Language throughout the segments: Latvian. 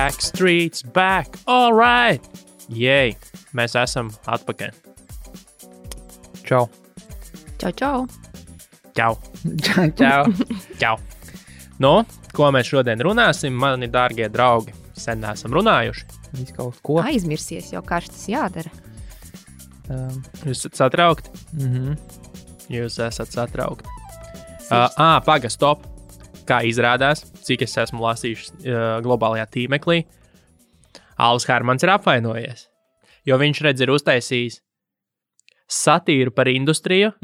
Backstreet's back, all right! Jei, mēs esam atpakaļ. Čau. Čau, čau. Čau. Čau. Čau. Nu, ko mēs šodien runāsim, mani dārgie draugi? Sen neesam runājuši. Viss kaut ko. Aizmirsies jau, kā tas jādara. Jūs esat satraukti? Jūs esat satraukti. Paga, stop. Kā izrādās, cik es esmu lasījis globālajā tīmeklī, Alvis Hermans ir apvainojies, jo viņš ir uztaisījis satīru par industriju,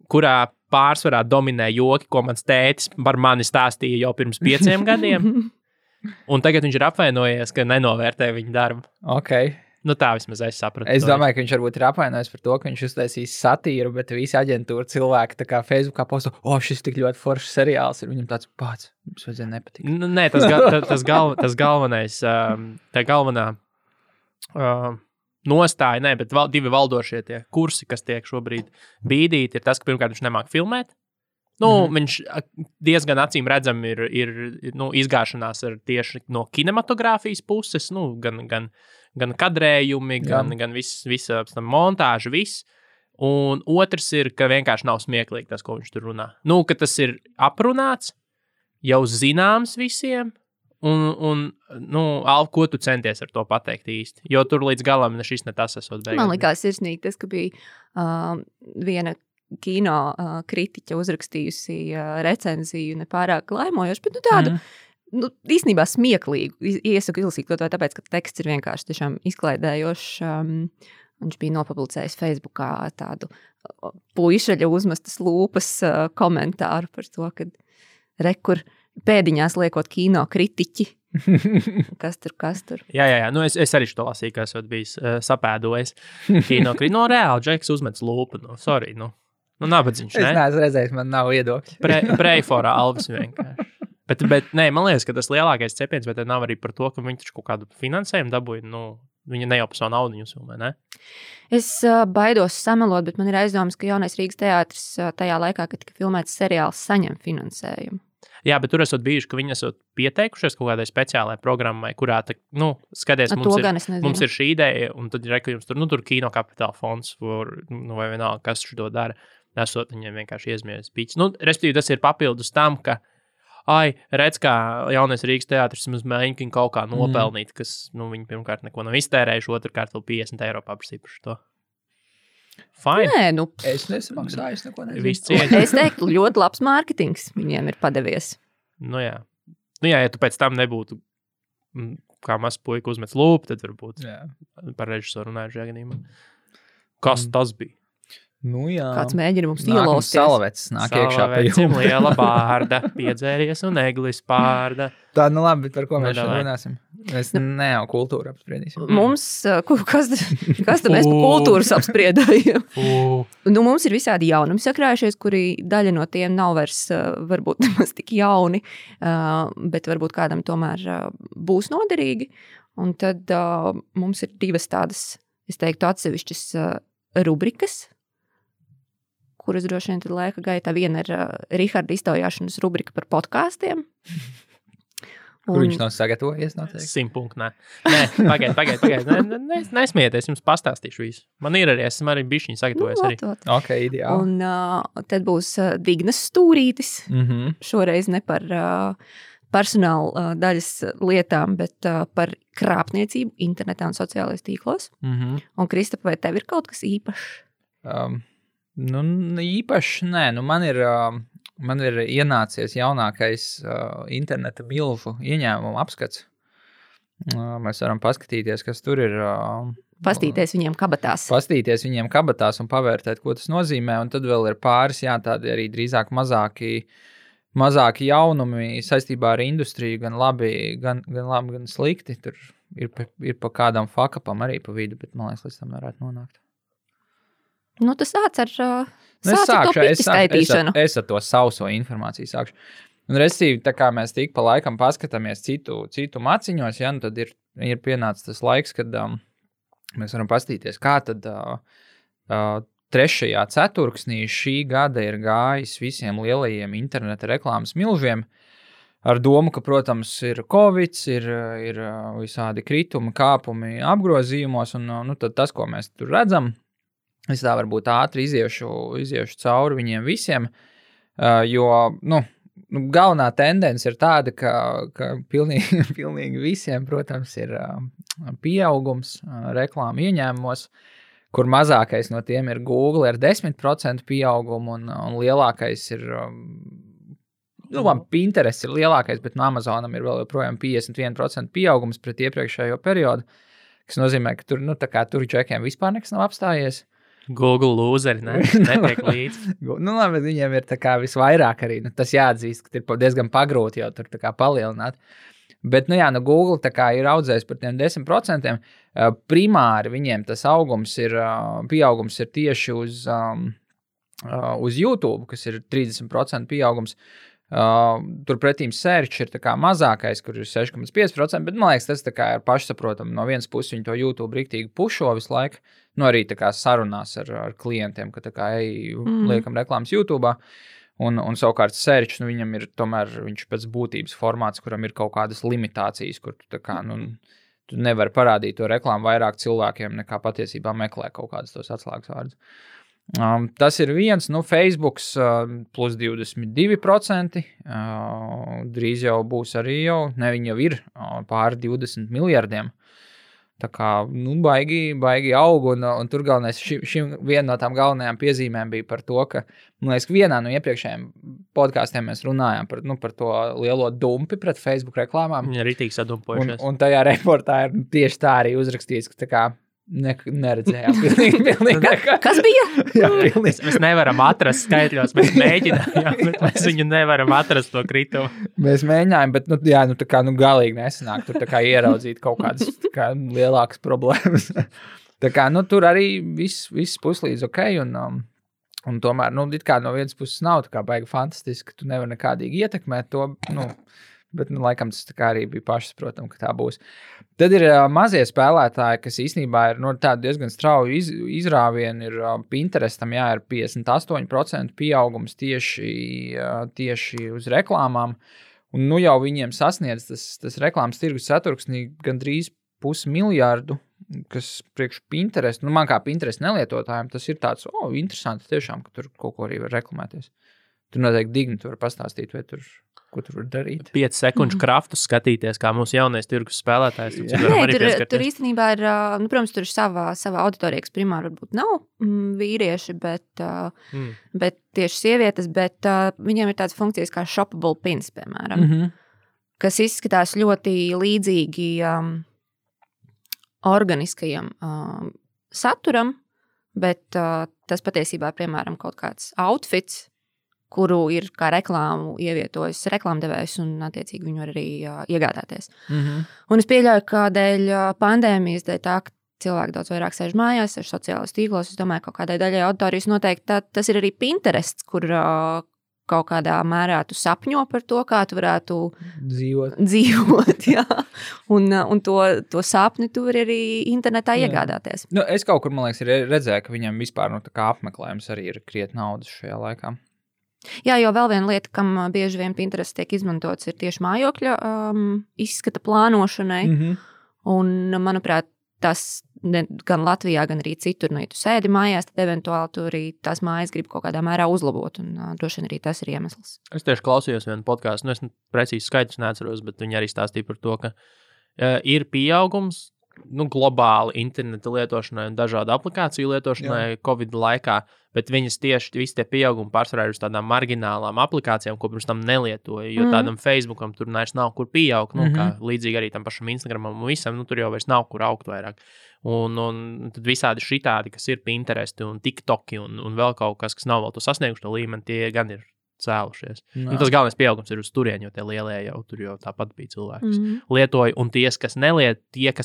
kurā pārsvarā dominē joki, ko mans tētis par mani stāstīja jau pirms 5 gadiem, un tagad viņš ir apvainojies, ka nenovērtē viņa darbu. Ok. Nu tā vismaz es sapratu. Es domāju, ka viņš varbūt ir apvainojis par to, ka viņš uztaisīs satīru, bet visi aģentūra cilvēki tā kā Facebookā posto, šis tik ļoti foršs seriāls ir, viņam tāds pats, mums vajadzēja nepatikt. Nē, tas galvenais, tā galvenā nostāja, bet divi valdošie tie kursi, kas tiek šobrīd bīdīti, ir tas, ka pirmkārt viņš nemāk filmēt. Viņš diezgan acīm redzam ir izgāšanās ar tieši no kinematogrāfijas puses, gan kadrējumi, gan visa montāža, viss. Un otrs ir, ka vienkārši nav smieklīgi tas, ko viņš tur runā. Ka tas ir aprunāts, jau zināms visiem, un Alv, ko tu centies ar to pateikt īsti? Jo tur līdz galam šis ne tas esot beigās. Man likās sirsnīgi tas, ka bija viena kino kritiķa uzrakstījusi recenziju nepārāk laimojoši, bet tādu īstenībā smieklīgu. Iesaku ilsīt to tāpēc, ka teksts ir vienkārši tiešām izklaidējošs. Viņš bija nopublicējis Facebookā tādu puišaļa uzmestas lūpas komentāru par to, ka rekur pēdiņās liekot kino kritiķi. Kas tur? Jā. Es arī to lasīju, ka esot bijis sapēdojis kino kritiķi. Reāli, Džeks uzmets lūpu. Sorry, nabadzīgs, ne? Es neesmu redzējis, man nav viedokļi. Pray for Alvis vienkārši. Bet nē, man liekas, ka tas lielākais cepiens, bet nav arī par to, ka viņi taču kaut kādu finansējumu dabūja. Viņa ne jau par savu naudu viņus filmē, ne? Es baidos samelot, bet man ir aizdomas, ka Jaunais Rīgas teātris tajā laikā, kad tika filmēts seriāls, saņem finansējumu. Jā, bet tur esot bijuši, ka viņi esot pieteikušies kaut kādai speciālai programmai, kurā, skaties, mums ir šī ideja, un tad ir, ka jums tur kino kapitāla fonds, vai vienalga, kas šo dara, esot viņiem vienkārši iezmieties pīķis. Respektīvi, tas ir papildus tam, ka redz, kā Jaunais Rīgas teātris mums mēģina kaut kā nopelnīt, kas, viņi pirmkārt neko nav iztērējuši, otrkārt vēl 50 eiro paprasīja par šo. Fine. Nē, es nesamaksāju, es neko nezinu. Es teiktu, ļoti labs mārketings viņiem ir padevies. Jā, ja tu pēc tam nebūtu kā mazs puika uzmets lūpu, tad varbūt par režisoru runāju šajā gadījumā. Kas tas bija? Jā. Kāds mēģina mums ielausties. Salavecs nāk iekšā pie jums. Liela bārda, piedzēries un eglis pārda. Tā, labi, bet par ko mēs šodien runāsim? Mēs jau kultūru apspriedīsim. Mums, kas tad mēs par kultūras apspriedājam? Mums ir visādi jaunumi sakrājušies, kuri daļa no tiem nav vairs varbūt nemaz tik jauni, bet varbūt kādam tomēr būs noderīgi. Un tad mums ir divas tādas, es teiktu, atsevišķas rubrikas, kuras droši vien tad laika gaitā. Viena ir Riharda iztaujāšanas rubrika par podkāstiem. Kur viņš nav sagatavojies noteikti? 100 punktu, nē. Nē, pagaid. Nesmieties, jums pastāstīšu visu. Man ir arī, esmu arī bišķiņi sagatavojies arī. Ok, ideāli. Un tad būs Dignas stūrītis. Šoreiz ne par personāla daļas lietām, bet par krāpniecību internetā un sociālajos tīklos. Un Kristapa, vai tev ir kaut kas īpašs? Īpaši nē, man ir ienācies jaunākais interneta milžu ieņēmumu apskats. Mēs varam paskatīties, kas tur ir. Pastīties viņiem kabatās un pavērtēt, ko tas nozīmē. Un tad vēl ir pāris, tādi arī drīzāk mazāki jaunumi saistībā ar industriju, gan labi, gan slikti. Tur ir pa kādam fakapam arī pa vidu, bet man liekas, līdz tam varētu nonākt. Tas sāc ar to piti skaitīšanu. Es ar to sauso informāciju sākšu. Un restīvi, tā kā mēs tik pa laikam paskatāmies citu maciņos, tad ir pienācis tas laiks, kad mēs varam pastīties, kā tad 3. ceturksnī šī gada ir gājis visiem lielajiem interneta reklāmas milžiem. ar domu, ka, protams, ir Covid, ir visādi kritumi, kāpumi apgrozījumos, un nu, tad tas, ko mēs tur redzam, es tā varbūt ātri iziešu cauri viņiem visiem, jo, galvenā tendence ir tāda, ka pilnīgi visiem, protams, ir pieaugums reklāmu ieņēmumos, kur mazākais no tiem ir Google ar 10% pieaugumu, un lielākais ir... Pinterest ir lielākais, bet no Amazonam ir vēl joprojām 51% pieaugums pret iepriekšējo periodu, kas nozīmē, ka tur džekiem vispār nekas nav apstājies. Google lūzeri, netiek līdzi. Labi, viņiem ir tā kā visvairāk arī, tas jāatzīst, ka ir diezgan pagrūti jau tur tā kā palielināt. Bet, Google tā kā ir audzējis par tiem 10%. Primāri viņiem tas pieaugums ir tieši uz YouTube, kas ir 30% pieaugums. Turpretīm search ir tā kā mazākais, kur ir 6,5%, bet, man liekas, tas tā kā ir pašsaprotam. No vienas puses viņi to YouTube riktīgi pušo visu laiku, arī tā kā sarunās ar klientiem, ka tā kā liekam reklāmas YouTube'ā. Un savukārt search, viņam ir tomēr viņš pēc būtības formāts, kuram ir kaut kādas limitācijas, kur tu tā kā, tu nevari parādīt to reklāmu vairāk cilvēkiem, nekā patiesībā meklē kaut kādus tos atslēgas vārdus. Tas ir viens, Facebooks plus 22%, drīz jau būs arī viņi jau ir pāri 20 miljardiem. Tā kā, baigi aug, un tur galvenais, viena no tām galvenajām piezīmēm bija par to, ka, man liekas, vienā no iepriekšējiem podkāstiem mēs runājām par to lielo dumpi pret Facebook reklāmām. Viņi arī tīk sadumpojušies. Un tajā reportā ir tieši tā arī uzrakstīts, ka tā kā neredzējām. Pilnīgi. Kas bija? Jā, mēs nevaram atrast skaitļos, mēs mēģinājām, bet mēs viņu nevaram atrast to kritumu. Mēs mēģinājām, bet, tā kā, galīgi nesanāk tur tā kā ieraudzīt kaut kādas tā kā lielākas problēmas. Tā kā, tur arī viss puslīdz ok, un tomēr, it kā no vienas puses nav tā kā baigi fantastiski, ka tu nevar nekādīgi ietekmēt to, bet, laikam, tas tā kā arī bija pašsaprotam, ka tā būs. Tad ir mazie spēlētāji, kas īstenībā ir tādi diezgan strauji izrāvieni. Ir Pinterestam, ir 58% pieaugums tieši uz reklāmām. Un jau viņiem sasniedz tas reklāmas tirgus ceturksnī gandrīz 500 miljardu, kas priekš Pinterest, man kā Pinterest nelietotājiem, tas ir tāds, interesanti tiešām, ka tur kaut ko arī var reklamēties. Tur noteikti Digni tu var pastāstīt, vai ko tur var darīt. 5 sekundžu kraftus skatīties, kā mūsu jaunais tirgus spēlētājs. Tur īstenībā ir, protams, tur ir sava auditorija, kas primāri varbūt nav vīrieši, bet tieši sievietes, bet viņiem ir tādas funkcijas kā shoppable pins, piemēram, kas izskatās ļoti līdzīgi organiskajam saturam, bet tas patiesībā, piemēram, kaut kāds outfits, kuru ir kā reklāmu ievietojis reklāmdevējs un, attiecīgi, viņu arī iegādāties. Un es pieļauju, ka dēļ pandēmijas, dēļ tā, ka cilvēki daudz vairāk sēž mājās, sēž sociālajos tīklos, es domāju, kaut kādai daļai auditorijas noteikti tas ir arī Pinterests, kur kaut kādā mērā tu sapņo par to, kā tu varētu dzīvot jā. Un to sapni tu vari arī internetā iegādāties. Es kaut kur, man liekas, redzēju, ka viņam vispār tā kā apmeklējums arī ir krietni naudas šajā laikā. Jā, jo vēl viena lieta, kam bieži vien Pinterest tiek izmantots, ir tieši mājokļa izskata plānošanai. Un, manuprāt, tas gan Latvijā, gan arī citur, ja tu sēdi mājās, tad eventuāli tu arī tās mājas grib kaut kādā mērā uzlabot, un droši vien arī tas ir iemesls. Es tieši klausījos vienu podcastu, es precīzi skaidrs neatceros, bet viņi arī stāstīja par to, ka ir pieaugums, globāli interneta lietošanai un dažādu aplikāciju lietošanai Covid laikā, bet viņas tieši visi tie pieaugumi pārsvarā ir uz tādām marginālām aplikācijām, ko pirms tam nelietoja, jo tādam Facebookam tur nav kur pieaugt, kā līdzīgi arī tam pašam Instagramam un visam, tur jau vairs nav kur augt vairāk. Un tad visādi šitādi, kas ir Pinteresti un TikToki un vēl kaut kas nav vēl to sasnieguši to līmeni, tie gan ir cēlušies. Tas galvenais pieaugums ir uz turieni, jo tie lielie jau tur jau tāpat bija cilvēki, kas lietoja, un tie, kas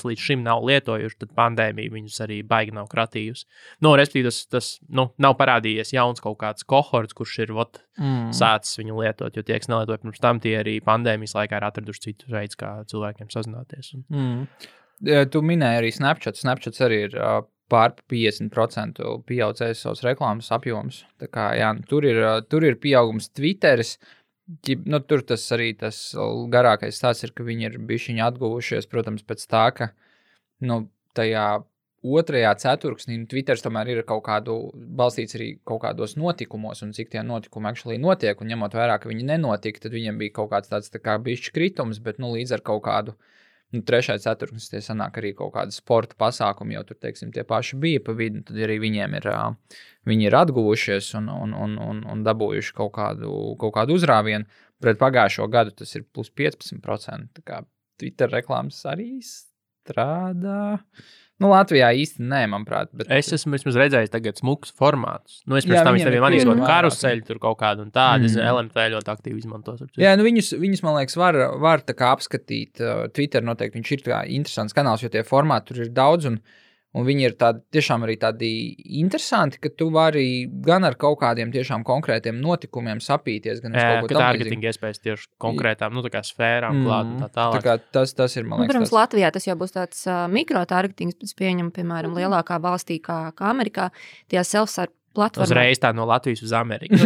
līdz šim nav lietojuši, tad pandēmija viņus arī baigi nav kratījusi. Respektīvi, tas nav parādījies jauns kaut kāds kohorts, kurš ir sācis viņu lietot, jo tie, kas nelietoja pirms tam, tie arī pandēmijas laikā ir atraduši citu veids, kā cilvēkiem sazināties. Tu minēji arī Snapchat. Snapchats arī ir pār 50% pieaudzējis savus reklāmas apjomus. Tā kā, tur ir pieaugums Twitteris. Nu, tur tas arī tas garākais stāsts ir, ka viņi ir bišķiņi atguvušies, protams, pēc tā, ka tajā otrajā ceturksnī Twitters tomēr ir kaut kādu balstīts arī kaut kādos notikumos, un cik tie notikumi actually notiek, un ņemot vērā, ka viņi nenotika, tad viņiem bija kaut kāds tāds tā kā bišķi kritums, bet līdz ar kaut kādu trešais ceturksnis tie sanāk arī kaut kāda sporta pasākumi, jau tur, teiksim, tie paši bija pa vidu, tad arī viņiem viņi ir atguvušies un dabūjuši kaut kādu uzrāvienu. Pret pagājušo gadu tas ir plus 15%, tā kā Twitter reklāmas arī strādā. Latvijā īsti nē, manuprāt. Bet... Es esmu vismaz redzējis tagad smukus formātus. Es pēc tam viņiem manīju karuseļu tur kaut kādu un tādu. LMT ļoti aktīvi izmantos. Jā, viņus, man liekas, var tā kā apskatīt. Twitter noteikti viņš ir tā interesants kanāls, jo tie formāti tur ir daudz un viņi ir tiešām arī tādi interesanti, ka tu vari gan ar kaut kādiem tiešām konkrētiem notikumiem sapīties, gan uz kaut ko tam līdzīgi. Targeting iespējas tieši konkrētām, tā kā sfērām klāt un tā tālāk. Tā kā tas ir, man liekas, protams, Latvijā tas jau būs tāds mikrotargetings, pēc pieņem, piemēram, lielākā valstī kā Amerikā, tie self-serve platformā. Uzreiz tā no Latvijas uz Ameriku.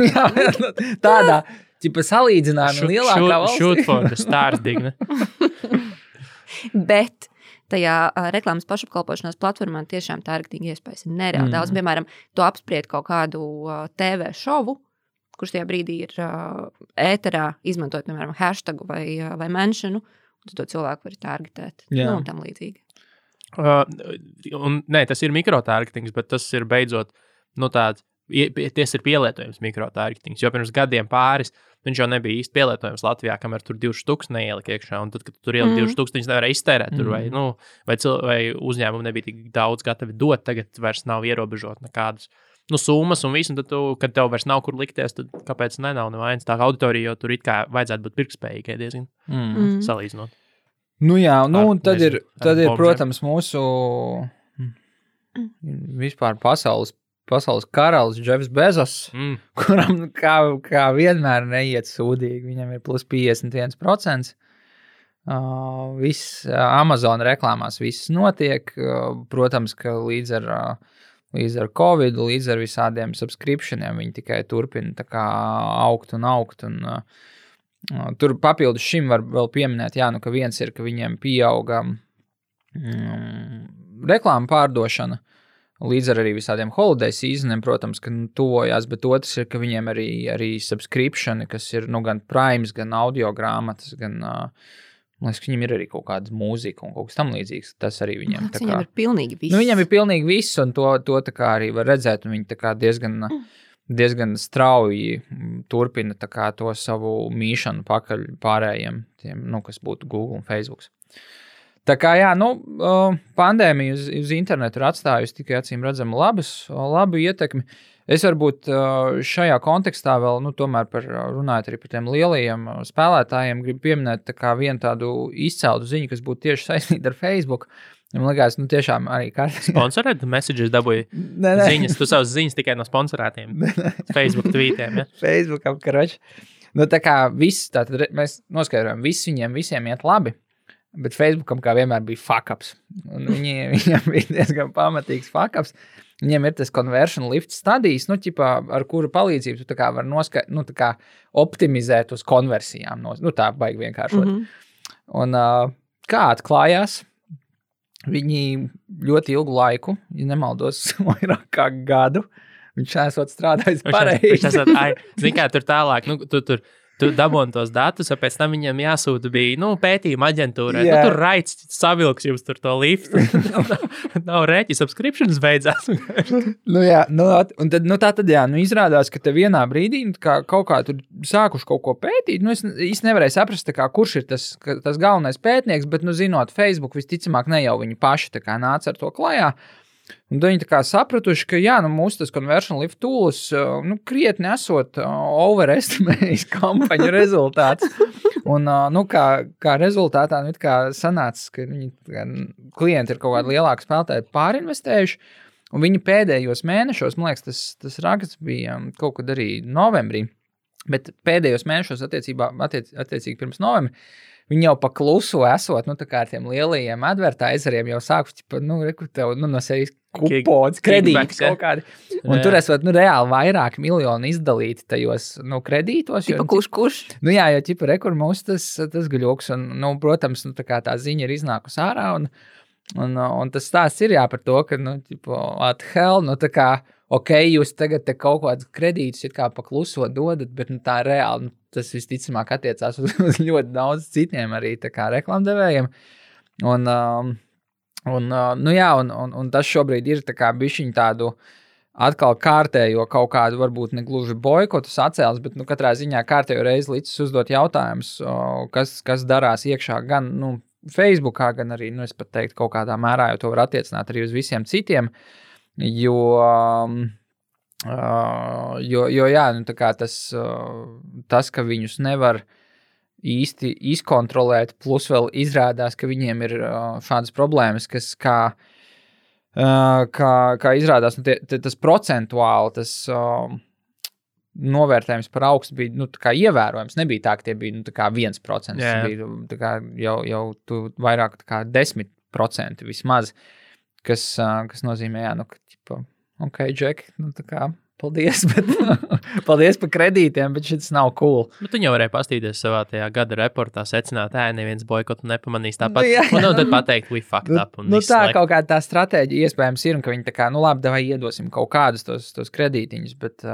Tādā, ķipa salīdzinājumi lielākā valstī. Shoot for the stars, Digne. Bet tajā reklāmas pašapkalpošanās platformā tiešām targeting iespējas ir nereāli daudz. Piemēram, tu apspried kaut kādu TV šovu, kurš tajā brīdī ir ēterā, izmantojot, piemēram, hashtagu vai menšanu, un tu to cilvēku vari targetēt. Un tam līdzīgi. Nē, tas ir mikrotargetings, bet tas ir beidzot, tāds, tas ir pielietojums mikrotargetings, jo pirms gadiem pāris viņš jau nebija īsti pielietojams Latvijā, kamēr tur 2,000 neielika iekšā, un tad, kad tur ielika 2,000, viņš nevarēja iztērēt tur, vai uzņēmumi nebija tik daudz gatavi dot, tagad vairs nav ierobežot nekādas summas un visu, un tad kad tev vairs nav kur likties, tad kāpēc nav nevainas tā auditorija, jo tur it kā vajadzētu būt pirktspējīgai diezgan salīdzinot. Un tad ir, protams, mūsu vispār pasaules karalis Jeffs Bezos, kuram kā vienmēr neiet sūdīgi. Viņam ir plus 51%. Viss Amazon reklāmās viss notiek. Protams, ka līdz ar Covid, līdz ar visādiem subscriptioniem viņi tikai turpina tā kā augt. Un, tur papildus šim var vēl pieminēt, ka viens ir, ka viņiem pieauga reklāma pārdošana. Līdz ar arī visādiem holiday seasoniem, protams, ka tuvojās, bet otrs ir, ka viņiem arī subscriptioni, kas ir gan Primes, gan audio grāmatas, gan, man liekas, viņiem ir arī kaut kāda mūzika un kaut kas tam līdzīgs. Tas arī viņiem tā kā... Viņiem ir pilnīgi viss. Viņiem ir pilnīgi viss, un to tā kā arī var redzēt, un viņi tā kā diezgan strauji turpina tā kā to savu mīšanu pakaļ pārējiem, tiem, kas būtu Google un Facebook. Tā kā, pandēmija uz internetu ir atstājusi tikai acīm redzami labu ietekmi. Es varbūt šajā kontekstā vēl, tomēr runājot arī par tiem lielajiem spēlētājiem, gribu pieminēt tā kā vienu tādu izceltu ziņu, kas būtu tieši saistīta ar Facebook. Man liekas, tiešām arī kārtīgi. Sponsorēt messages dabūja ziņas, tu savas ziņas tikai no sponsorētiem Facebook tweetiem, ja? Facebookam, karoči. Tā kā viss, tātad mēs noskaidrojam, viņiem visiem iet labi. Bet Facebookam kā vienmēr bija fuck-ups. Viņam bija diezgan pamatīgs fuck-ups. Viņiem ir tas conversion lift stadijas, ar kuru palīdzību tu tā kā var tā kā optimizēt uz konversijām. Tā baigi vienkāršot. Un kā atklājās, viņi ļoti ilgu laiku, ja nemaldos, vairāk kā gadu, viņš esot strādājis pareizi. Zini kā, tur tālāk, tu dabūni tos datus, un pēc tam viņam jāsūta bija, pētījuma aģentūrai. Tur raids savilks jums tur to liftu. Nav rēķi, subscriptions beidzās. Un tad, izrādās, ka te vienā brīdī kaut kā tur sākuši kaut ko pētīt. Es īsti nevarēju saprast, kurš ir tas galvenais pētnieks, bet, zinot Facebook, visticamāk ne jau viņi paši tā kā nāca ar to klajā. Un viņi tā kā sapratuši, ka mūsu tas conversion lift tools krietni esot overestimējis kampaņu rezultāts. Un kā rezultātā kā sanāca, ka klienti ir kaut kādi lielāki spēlētāji pārinvestējuši. Un viņi pēdējos mēnešos, man liekas, tas raksts bija kaut kad arī novembrī, bet pēdējos mēnešos attiecīgi pirms novembra, viņi jau pa klusu esot, tā kā ar tiem lielajiem advertiseriem jau sākuši, tev, no sevis kupons, kredīti kaut kādi. Un tur esot, reāli vairāk miljonu izdalīti tajos, kredītos. Tipa kurš? Jā, jo, rekur mums tas gaļoks, un, protams, tā kā tā ziņa ir iznākusi ārā, un tas stāsts ir par to, ka, what hell, tā kā, jūs tagad te kaut kādus kredītus it kā pa kluso dodat, bet, tā reāli, tas visticamāk attiecās uz ļoti daudz citiem arī tā kā reklamdevējiem. Un tas šobrīd ir tā kā bišķiņ tādu atkal kārtējo kaut kādu varbūt ne gluži boikotu sacēls, bet katrā ziņā kārtējo reizi līdz uzdot jautājumus, kas darās iekšā gan Facebookā, gan arī, es pat teiktu, kaut kādā mērā, jo to var attiecināt arī uz visiem citiem, jo jā, tā kā tas, ka viņus nevar īsti izkontrolēt, plus vēl izrādās, ka viņiem ir šādas problēmas, kas kā izrādās, tas procentuāli, tas novērtējums par augstu bija, tā kā ievērojams, nebija tā, ka tie bija, tā kā 1%, bija, tā kā jau tu vairāk, tā kā 10% vismaz, kas nozīmē, ka, ok, Džek, tā kā, paldies, bet paldies par kredītiem, bet šis nav cool. Bet tu jau varēji pastīties savā tajā gada reportā, secināt, neviens boikotu nepamanīs tāpat. Un tad pateikt, we fucked up. Un tā kaut kā tā stratēģija iespējams ir, un ka viņi tā kā, labi, davai iedosim kaut kādus tos kredītiņus, bet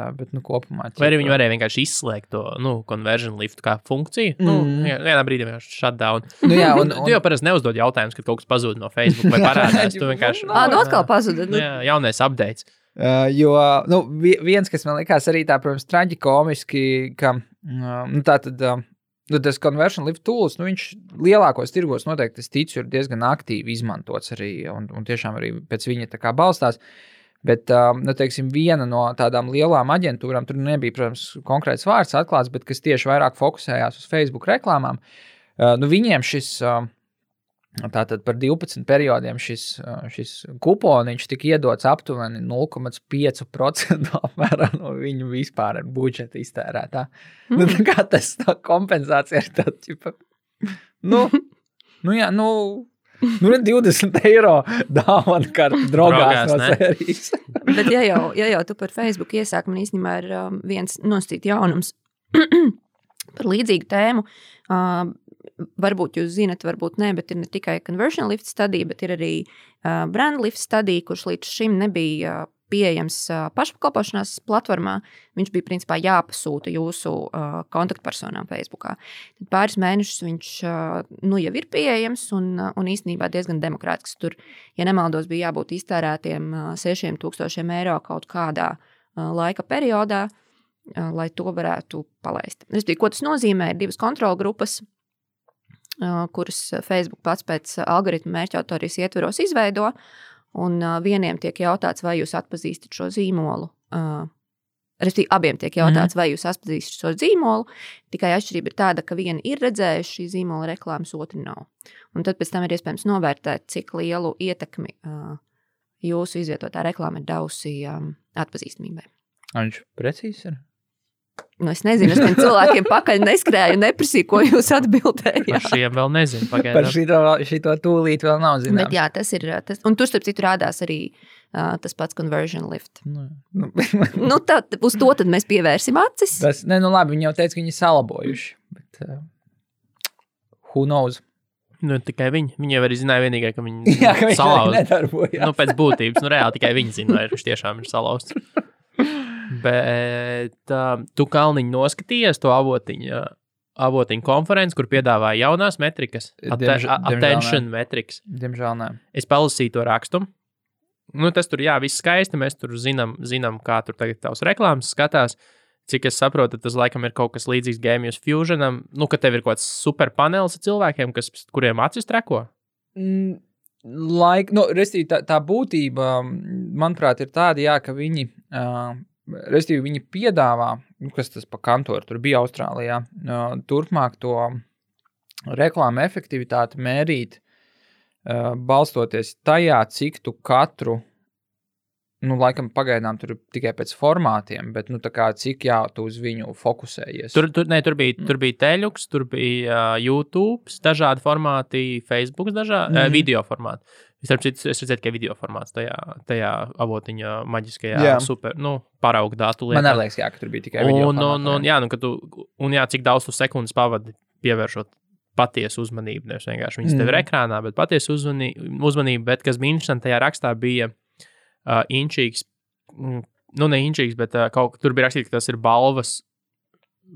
kopumā. Vai arī viņi varēja vienkārši izslēgt to, conversion lift kā funkciju? Vienā brīdī vienkārši shutdown. Tu jau parasti neuzdod jautājumus, kad kaut kas pazūd no Facebook vai parādās. Tu vienkārši. Atkal pazuda. Jaunais updates. Jo, viens, kas man likās arī tā, protams, traģikomiski, ka, tas conversion lift tools, viņš lielākos tirgos noteikti, es ticu, ir diezgan aktīvi izmantots arī, un tiešām arī pēc viņa tā kā balstās, bet, teiksim, viena no tādām lielām aģentūrām, tur nebija, protams, konkrēts vārds atklāts, bet kas tieši vairāk fokusējās uz Facebook reklāmām, viņiem šis tātad par 12 periodiem šis kuponiņš tika iedots aptuveni 0,5% apmērā no viņu vispār budžeta iztērētā. Tā kā tas tā kompensācija ir tā, ķipa, 20 eiro dāvana karta drogās no sērijas. Bet ja jau tu par Facebook iesāk, man īstenībā ir viens nosacīt jaunums par līdzīgu tēmu. Varbūt jūs zinat, varbūt ne, bet ir ne tikai conversion lift studija, bet ir arī brand lift studija, kurš līdz šim nebija pieejams pašpakalpošanās platformā. Viņš bija principā jāpasūta jūsu kontaktpersonām Facebookā. Tad pāris mēnešus viņš jau ir pieejams un īstenībā diezgan demokrātisks. Tur, ja nemaldos, bija jābūt iztērētiem 6,000 eiro kaut kādā laika periodā, lai to varētu palaist. Ko tas nozīmē? Ir divas kontrolgrupas, kuras Facebook pats pēc algoritmu mērķautorijas ietveros izveido, un vieniem tiek jautāts, vai jūs atpazīstat šo zīmolu. Respektīvi, abiem tiek jautāts, vai jūs atpazīstat šo zīmolu, tikai atšķirība ir tāda, ka vieni ir redzējuši šī zīmola reklāmas, otri nav. Un tad pēc tam ir iespējams novērtēt, cik lielu ietekmi jūsu izvietotā reklāma ir devusi atpazīstamībai. Viņš precīzi ir? Es nezinu, es cilvēkiem pakaļ neskrēju, neprasīju, ko jūs atbildējāt. Par šiem vēl nezinu. Par šito tūlīt vēl nav zināms. Bet jā, tas ir, un tur starp citu rādās arī tas pats conversion lift. Uz to tad mēs pievērsim acis. Labi, viņi jau teica, ka viņi salabojuši, bet who knows? Tikai viņi. Viņi jau arī zināja vienīgai, ka viņi salauz. Nedarbojās. Pēc būtības, reāli tikai viņi zina, vai viņš tiešām ir salauzts. Bet tu, Kalniņ, noskatījies to avotiņu konferenci, kur piedāvāja jaunās metrikas, attention metrikas. Diemžēl nē. Es palasīju to rakstu. Tas tur, viss skaisti, mēs tur zinām, kā tur tagad tavs reklāmas skatās. Cik es saprotu, tas laikam ir kaut kas līdzīgs Gamius Fusionam, ka tev ir kaut kāds super panelis ar cilvēkiem, kuriem acis treko? Tā būtība, manuprāt, ir tāda, ka viņi... Restīvi, viņi piedāvā, kas tas pa kantoru, tur bija Austrālijā, turpmāk to reklāmu efektivitāti mērīt, balstoties tajā, cik tu katru laikam pagaidām tur tikai pēc formātiem, bet, tā kā cik tu uz viņu fokusējies? Tur bija Teļuks, tur bija YouTube, dažādi formāti, Facebook, video formāti. Es redzēju, ka video formāts tajā avotiņa maģiskajā super, paraugu datu lietā. Man arī liekas, ka tur bija tikai video formāti. Cik daudz tu sekundes pavadi pievēršot patiesu uzmanību, nevis vienkārši viņas tev ir ekrānā, bet patiesu uzmanību, bet kas bija interesanti tajā rakstā bija inčīgs, ne inčīgs, bet tur bija rakstīts, ka tas ir balvas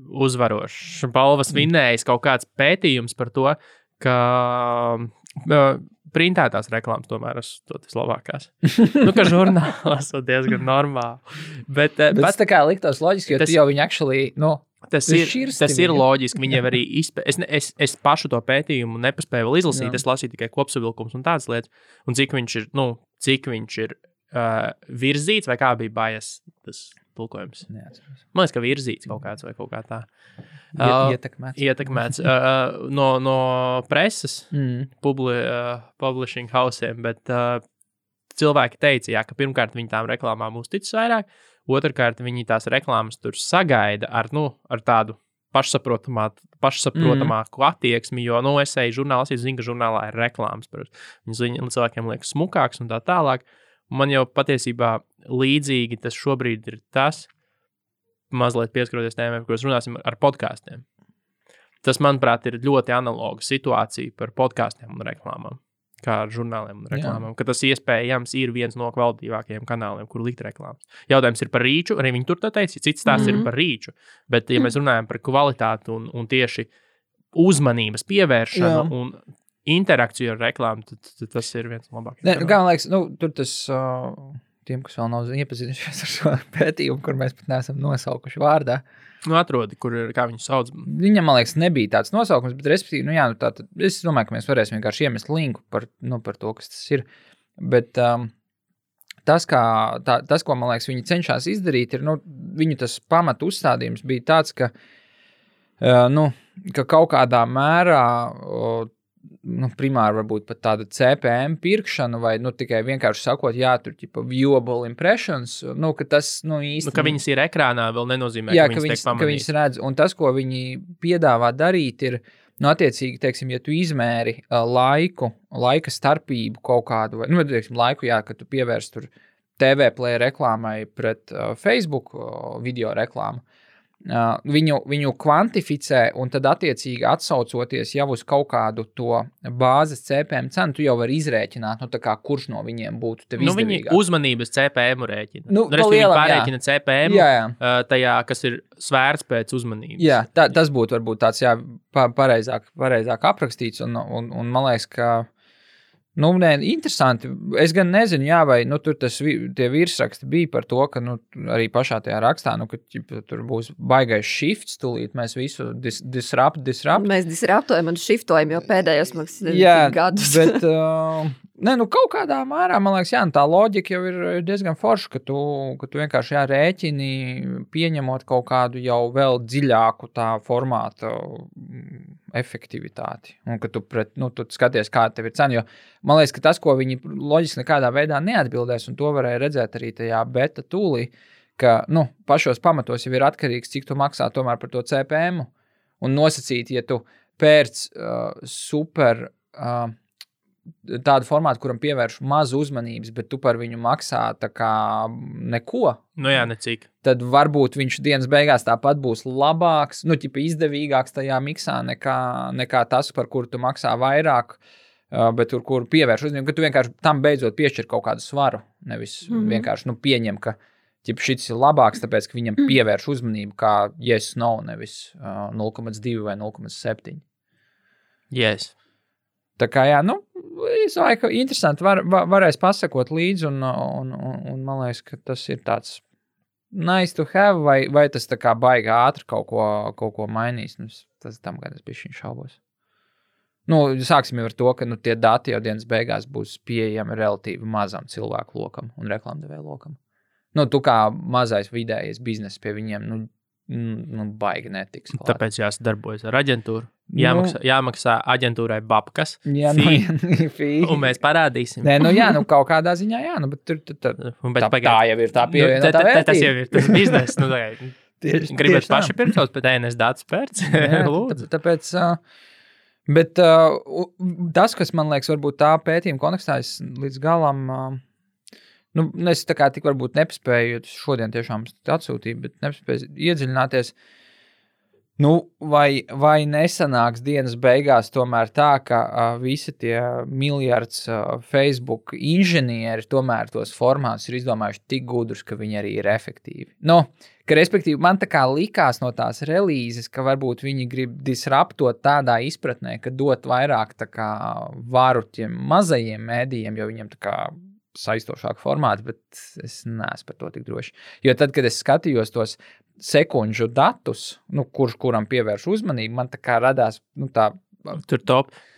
uzvarošs, balvas vinnējis kaut kāds pētījums par to, ka printētās reklāmas tomēr esmu tas labākās. Ka žurnālā esmu diezgan normāli. Bet tas tā kā liktos loģiski, jo tu jau viņu actually, Tas ir loģiski. Viņiem arī es pašu to pētījumu nepaspēju vēl izlasīt. Es lasīju tikai kopsavilkums un tādas lietas. Un cik viņš ir virzīts, vai kā bija bias tas tulkojums? Neatceros. Man liekas, ka virzīts kaut kāds vai kaut kā tā. Ietekmēts no preses, publishing hausiem, bet cilvēki teica, ka pirmkārt viņi tām reklāmām uzticas vairāk, otrkārt viņi tās reklāmas tur sagaida ar tādu pašsaprotamāku attieksmi, jo, es eju žurnālā, es zinu, ka žurnālā ir reklāmas, viņas cilvēkiem liekas smukāks un tā tālāk. Man jau patiesībā līdzīgi tas šobrīd ir tas, mazliet pieskaroties tēmai, par ko runāsim ar podkāstiem. Tas, manuprāt, ir ļoti analoga situācija par podkāstiem un reklāmām, kā ar žurnāliem un reklāmām, ka tas iespējams ir viens no kvalitīvākajiem kanāliem, kur likt reklāmas. Jautājums ir par rīču, arī viņi tur tā teica, cits tās ir par rīču, bet ja mēs runājam par kvalitāti un tieši uzmanības pievēršanu un interakciju ar reklāmu, tad tas ir viens no labākajiem. Kā man liekas, tur tas tiem, kas vēl nav iepazinušies ar šo pētījumu, kur mēs pat neesam nosaukuši vārdā. Atrodi, kā viņu sauc. Viņam, man liekas, nebija tāds nosaukums, bet respektīvi, es domāju, ka mēs varēsim vienkārši iemest linku par to, kas tas ir. Bet tas, ko, man liekas, viņi cenšas izdarīt, ir, viņu tas pamatu uzstādījums bija tāds, ka kaut kādā mērā primāri varbūt pat tāda CPM pirkšana vai tikai vienkārši sakot, tur viewable impressions, ka tas īsti... ka viņas ir ekrānā vēl nenozīmē, ka viņas tiek pamanīt. Ka viņas redz, un tas, ko viņi piedāvā darīt, ir, attiecīgi, teiksim, ja tu izmēri laika starpību kaut kādu, vai, teiksim, laiku, ka tu pievērsi tur TV play reklāmai pret Facebook video reklāmu, viņu kvantificē un tad attiecīgi atsaucoties jau uz kaut kādu to bāzes CPM cenu, tu jau vari izrēķināt, kurš no viņiem būtu tev izdevīgāk. Viņi uzmanības CPM rēķina. Viņi pārēķina CPM tajā, kas ir svērts pēc uzmanības. Jā, tas būtu varbūt tāds pareizāk aprakstīts un man liekas, ka interesanti. Es gan nezinu, vai tur tie virsraksti bija par to, ka arī pašā tajā rakstā, ka tur būs baigais shifts, tūlīt mēs visu disrupt. Mēs disruptojam un shiftojam jau pēdējos gadus. Bet, kaut kādā mērā, man liekas, tā loģika jau ir diezgan forša, ka tu vienkārši rēķini, pieņemot kaut kādu jau vēl dziļāku tā formāta efektivitāti. Un ka tu skaties, kāda tev ir cena, jo man liekas, ka tas, ko viņi loģiski nekādā veidā neatbildēs, un to varēja redzēt arī tajā beta tūlī, ka, pašos pamatos jau ir atkarīgs, cik tu maksā tomēr par to CPM, un nosacīt, ja tu pērc super tādu formātu, kuram pievērš mazu uzmanības, bet tu par viņu maksā tā kā neko. Necik. Tad varbūt viņš dienas beigās tāpat būs labāks, izdevīgāks tajā miksā nekā tas, par kuru tu maksā vairāk, bet tur, kur pievērš uzmanību, ka tu vienkārši tam beidzot piešķir kaut kādu svaru, nevis vienkārši pieņem, ka šis ir labāks, tāpēc, ka viņam pievērš uzmanību kā yes, no, nevis 0,2 vai 0,7. Yes. Tā kā, es domāju, ka interesanti varēs pasakot līdzi, un man liekas, ka tas ir tāds nice to have, vai tas tā kā baigi ātri kaut ko mainīs. Tas tam, kad es bišķiņ šaubos. Sāksim jau ar to, ka tie dati jau dienas beigās būs pieejami relatīvi mazam cilvēku lokam un reklamdevēju lokam. Tu kā mazais vidējais biznes pie viņiem, baigi netiks. Klāt. Tāpēc jāsadarbojas ar aģentūru. Jāmaksā aģentūrai babkas. Jā, un mēs parādīsim. Nē, kaut kādā ziņā, bet tur tā jau ir tā pievienotā vērtība. Tas jau ir tas bizness. Gribat paši pirkt savus pēc ENS datu spērts? Lūdzu. Tāpēc, bet tas, kas man liekas, varbūt tā pētījuma kontekstā, es līdz galam, es tā kā tik varbūt nepaspēju, jo šodien tiešām atsūtīju, bet nepaspēju iedziļināties. Vai nesanāks dienas beigās tomēr tā, ka visi tie miljards Facebook inženieri tomēr tos formātus ir izdomājuši tik gudrus, ka viņi arī ir efektīvi. Ka respektīvi man tā kā likās no tās relīzes, ka varbūt viņi grib disruptot tādā izpratnē, ka dot vairāk tā kā varu tiem mazajiem mēdījiem, jo viņiem tā kā saistošāk formāti, bet es neesmu par to tik droši. Jo tad, kad es skatījos tos sekundžu datus, kuram pievērš uzmanību, man tā kā radās, tā... Tur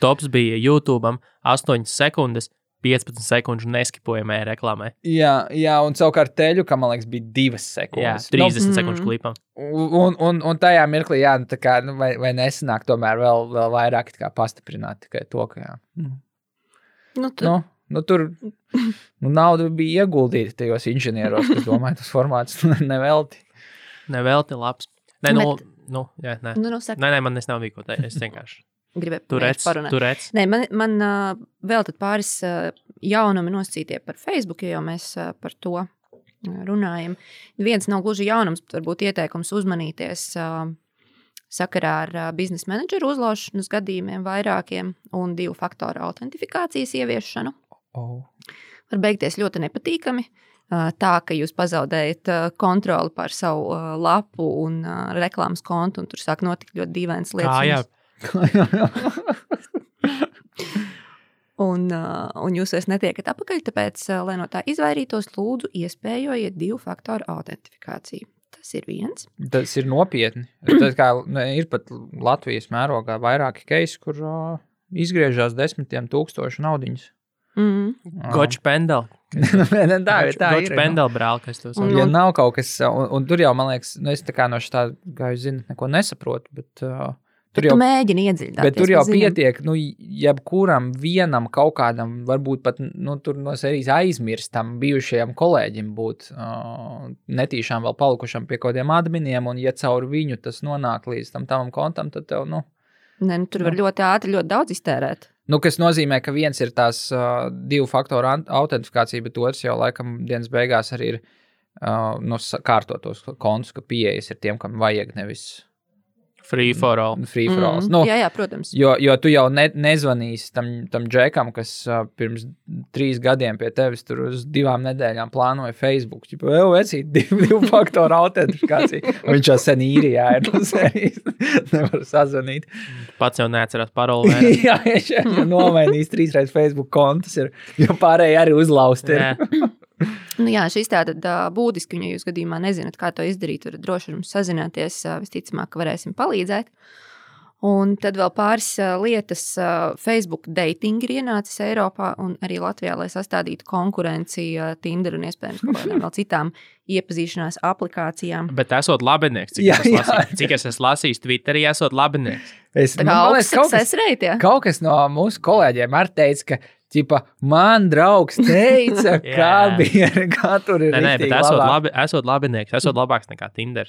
tops bija YouTube'am 8 sekundes, 15 sekundžu neskipojamai reklāmai. Jā, un savukārt teļu, ka man liekas, bija 2 sekundes. Jā, 30 sekundžu klipam. Un tajā mirklī, tā kā, vai nesanāk tomēr vēl vairāk tā kā pastiprināt tikai to, ka jā. Tur nauda bija ieguldīta tajos inženieros, kas domāja tos formātus nevelti. Nevelti labs. Nē, man nav ko teikt. Es vienkārši gribēju turēt. Nē, man vēl tad pāris jaunumi nosacītie par Facebook, jo mēs par to runājam. Viens nav gluži jaunums, bet varbūt ieteikums uzmanīties sakarā ar biznesa menedžeru uzlaušanas gadījumiem vairākiem un 2 faktoru autentifikācijas ieviešanu. Var beigties ļoti nepatīkami. Tā, ka jūs pazaudējat kontroli pār savu lapu un reklāmas kontu, un tur sāk notikt ļoti dīvainas lietas. Un jūs vairs netiekat apakaļ, tāpēc, lai no tā izvairītos, lūdzu iespējojiet 2 faktoru autentifikāciju. Tas ir viens. Tas ir nopietni. Tas kā, ir pat Latvijas mērogā vairāki keisi, kur izgriežās 10,000 naudiņas. Gočs pendel. Tā Gočs pendel brāl, kas to saka. Ja nav kaut kas, un tur jau, man liekas, es tā kā no šitā, kā jūs zināt, neko nesaprotu, bet tur jau mēģini iedziļināties. Bet tur jau pietiek, jebkuram vienam kaut kādam, varbūt pat, tur no serijas aizmirstam bijušajam kolēģim būt netīšām vēl palikušam pie kaut kādiem adminiem, un ja caur viņu tas nonāk līdz tam kontam, tad tev, tur var ļoti ātri, ļoti daudz iztērēt. Kas nozīmē, ka viens ir tās 2 faktoru autentifikācija, bet otrs jau laikam dienas beigās arī ir kārtotos kontus, ka pieejas ir tiem, kam vajag nevis free for all. Jā, protams. Jo tu jau nezvanīsi tam džekam, kas pirms 3 gadiem pie tevis tur uz 2 nedēļām plānoja Facebook. Vecīt 2 faktoru autentifikāciju. Viņš jau sen īrijā ir no serijas. Nevar sazvanīt. Pats jau neatcerās paroli. Jā, nomainījis 3 reizes Facebook kontus, jo pārējie arī uzlausti ir. Šis tātad būtiski, ja jūs gadījumā nezināt, kā to izdarīt, varat droši ar mums sazināties, visticamāk, ka varēsim palīdzēt. Un tad vēl pāris lietas. Facebook dating ir ienācis Eiropā un arī Latvijā, lai sastādītu konkurenci Tinder un iespējams kaut kādām vēl citām iepazīšanās aplikācijām. Bet esot labinieks, cik es esmu lasījis Twitterī, esot labinieks. Tā kā augsts success rate, jā? Kaut kas no mūsu kolēģiem arī teica, ka man draugs teica, kā tur ir rīktīgi labāk. Esot labinieks, esot labāks nekā Tinder.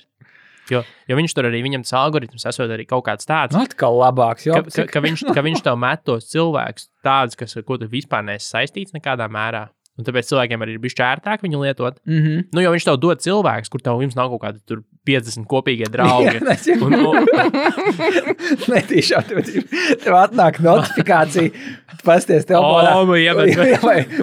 Jo viņš tur arī, viņam tas algoritms esot arī kaut kāds tāds. Atkal labāks, jo. Ka viņš tev met tos cilvēkus tādus, ko tu vispār neesi saistīts nekādā mērā. Un tāpēc cilvēkiem arī ir bišķi ērtāk viņu lietot. Jo viņš tev dod cilvēkus, kur jums nav kaut kādi tur 50 kopīgie draugi. Netīšām, tev atnāk notifikācija, pasties tev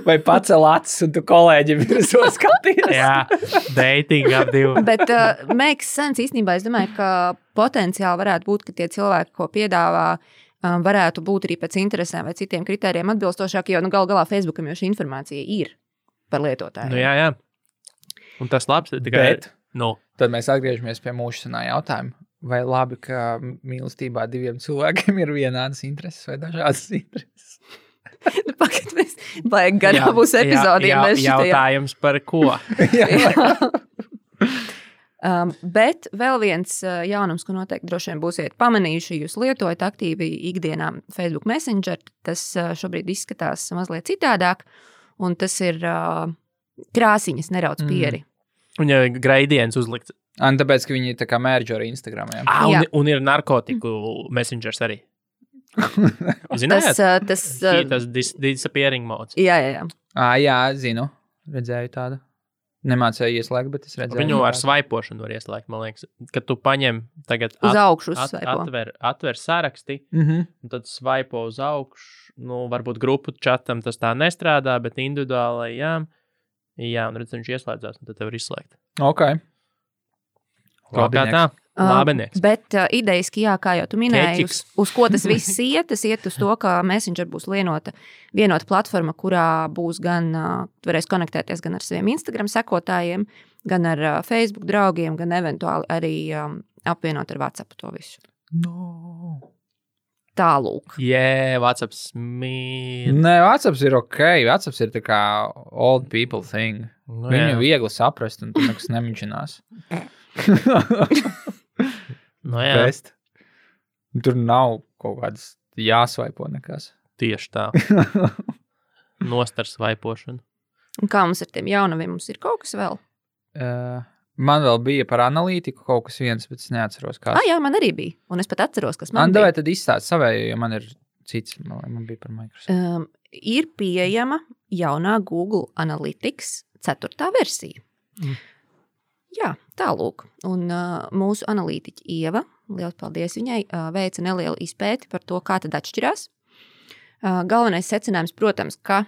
vai pacel acis, un tu kolēģi virsot skaties. Jā, dating ap 2. Bet makes sense īstenībā, es domāju, ka potenciāli varētu būt, ka tie cilvēki, ko piedāvā, varētu būt arī pēc interesēm vai citiem kritērijiem atbilstošāk, jo gal galā Facebookam jau šī informācija ir par lietotāju. Jā. Un tas labs. Bet tad mēs atgriežamies pie mūsu senā jautājuma. Vai labi, ka mīlestībā 2 cilvēkiem ir vienādas intereses vai dažādas intereses? Pagad, mēs vajag garā būs epizodiem. Jautājums par ko? Bet vēl viens jaunums, ko noteikti droši vien būsiet pamanījuši, jūs lietojat aktīvi ikdienā Facebook Messenger, tas šobrīd izskatās mazliet citādāk, un tas ir krāsiņas nerauc pieri. Un ja gradients uzlikts. Un tāpēc, ka viņi tā kā mērģo ar Instagram. Jā. Un ir narkotiku messengers arī. Zinājāt? Tas disappearing modes. Jā. Jā, zinu. Redzēju tādu. Nemācēju ieslēgt, bet es redzēju. Viņu ar svaipošanu var ieslēgt, man liekas. Kad tu paņem tagad uz augšu uzsvaipo. Atver saraksti, un tad svaipo uz augšu. Nu, varbūt grupu čatam tas tā nestrādā, bet individuālai, jā, un redz, viņš ieslēdzās, un tad tev var izslēgt. Ok. Kā tā? Labinieks. Bet ideiski, jā, kā jau tu minēji, uz ko tas viss iet? Tas iet uz to, ka Messenger būs vienota platforma, kurā būs gan, varēs konektēties gan ar saviem Instagram sekotājiem, gan ar Facebook draugiem, gan eventuāli arī apvienot ar WhatsApp to visu. No. Tālūk. WhatsApps mīl. Nē, WhatsApps ir ok. WhatsApps ir tā kā old people thing. Viņu viegli saprast, un tu nekas nemiņķinās. Best. Tur nav kaut kādas jāsvaipo nekas. Tieši tā. Nostar svaipošanu. Un kā mums ar tiem jaunaviem? Mums ir kaut kas vēl? Man vēl bija par analītiku kaut kas viens, bet es neatceros, kas. Jā, man arī bija. Un es pat atceros, kas man bija. Vai tad izstāst savēju, jo man ir cits, man bija par Microsoft. Ir pieejama jaunā Google Analytics 4. versija. Jā, tālūk. Un mūsu analītiķi Ieva, liels paldies viņai, veica nelielu izpēti par to, kā tad atšķirās. Galvenais secinājums, protams, ka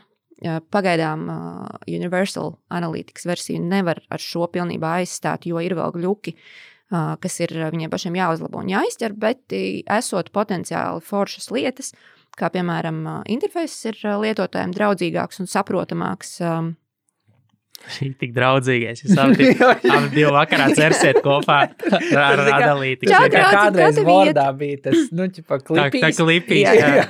pagaidām Universal Analytics versiju nevar ar šo pilnībā aizstāt, jo ir vēl gļuki, kas ir viņiem pašiem jāuzlabo un jāizķer, bet esot potenciāli foršas lietas, kā piemēram interfejs ir lietotājiem draudzīgāks un saprotamāks. Šī tik draudzīgais. Jūs abi divi vakarā cersiet kopā ar analītiku. Kādreiz Wordā bija tas, ķipa klipīs. Tā klipīs, jā.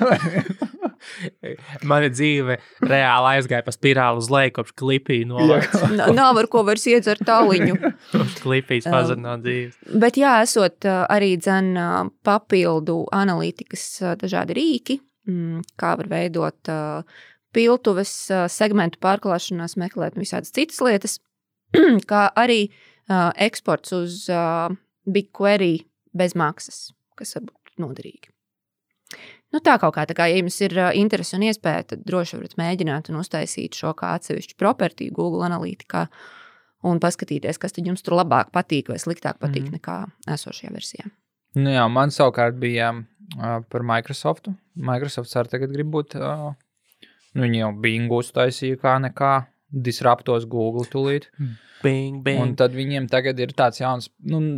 Mana dzīve reāli aizgāja pa spirāli uz leju, kopš klipī novāks. Nav ar ko vairs iedzert tāliņu. Klipīs pazarnāt dzīves. Bet jā, esot arī papildu analītikas dažādi rīki, kā var veidot piltuves, segmentu pārklāšanās, meklēt visādas citas lietas, kā arī eksports uz BigQuery bez maksas, kas var būt noderīgi. Tā kaut kā, ja jums ir interesi un iespēja, tad droši varat mēģināt un uztaisīt šo kā atsevišķu propertiju Google Analytikā un paskatīties, kas tad jums tur labāk patīk vai sliktāk patīk nekā esošajā versijā. Jā, man savukārt bija par Microsoftu. Microsofts arī tagad grib būt... Viņi jau Bingu uztaisīja kā nekā, disruptos Google tūlīt. Bing. Un tad viņiem tagad ir tāds jauns,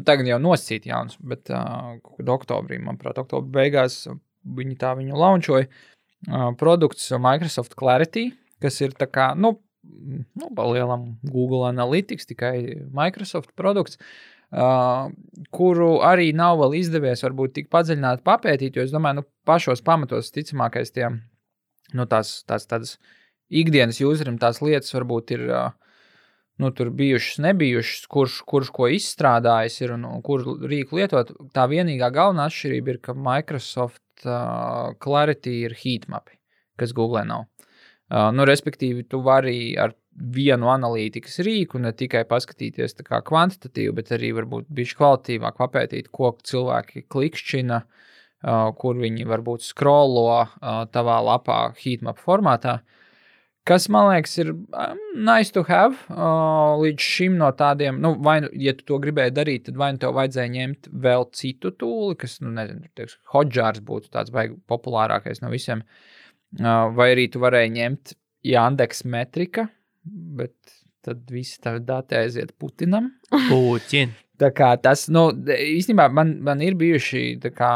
tagad jau nosacīt jauns, bet oktobrī, manuprāt, oktobra beigās viņi viņu launčoja. Produkts Microsoft Clarity, kas ir tā kā, pa lielam Google Analytics, tikai Microsoft produkts, kuru arī nav vēl izdevies varbūt tik padziļināt papētīt, jo es domāju, pašos pamatos ticamākais tiem, tādas ikdienas userim tās lietas varbūt ir, tur bijušas, nebijušas, kurš ko izstrādājis ir un kur rīku lietot. Tā vienīgā galvenā atšķirība ir, ka Microsoft Clarity ir heatmapi, kas Google nav. Respektīvi, tu vari ar vienu analītikas rīku ne tikai paskatīties tā kā kvantitatīvi, bet arī varbūt bišķi kvalitīvāk papētīt, ko cilvēki klikšķina, kur viņi varbūt scrollo tavā lapā heatmap formātā, kas, man liekas, ir nice to have līdz šim no tādiem, vai, ja tu to gribēji darīt, tad vai tev vajadzēja ņemt vēl citu tūli, kas, Hotjars būtu tāds baigi populārākais no visiem, vai arī tu varēji ņemt Yandex metrika, bet tad visi tavi dati aiziet Putinam. Putin. Tā kā tas, īstenībā man ir bijuši tā kā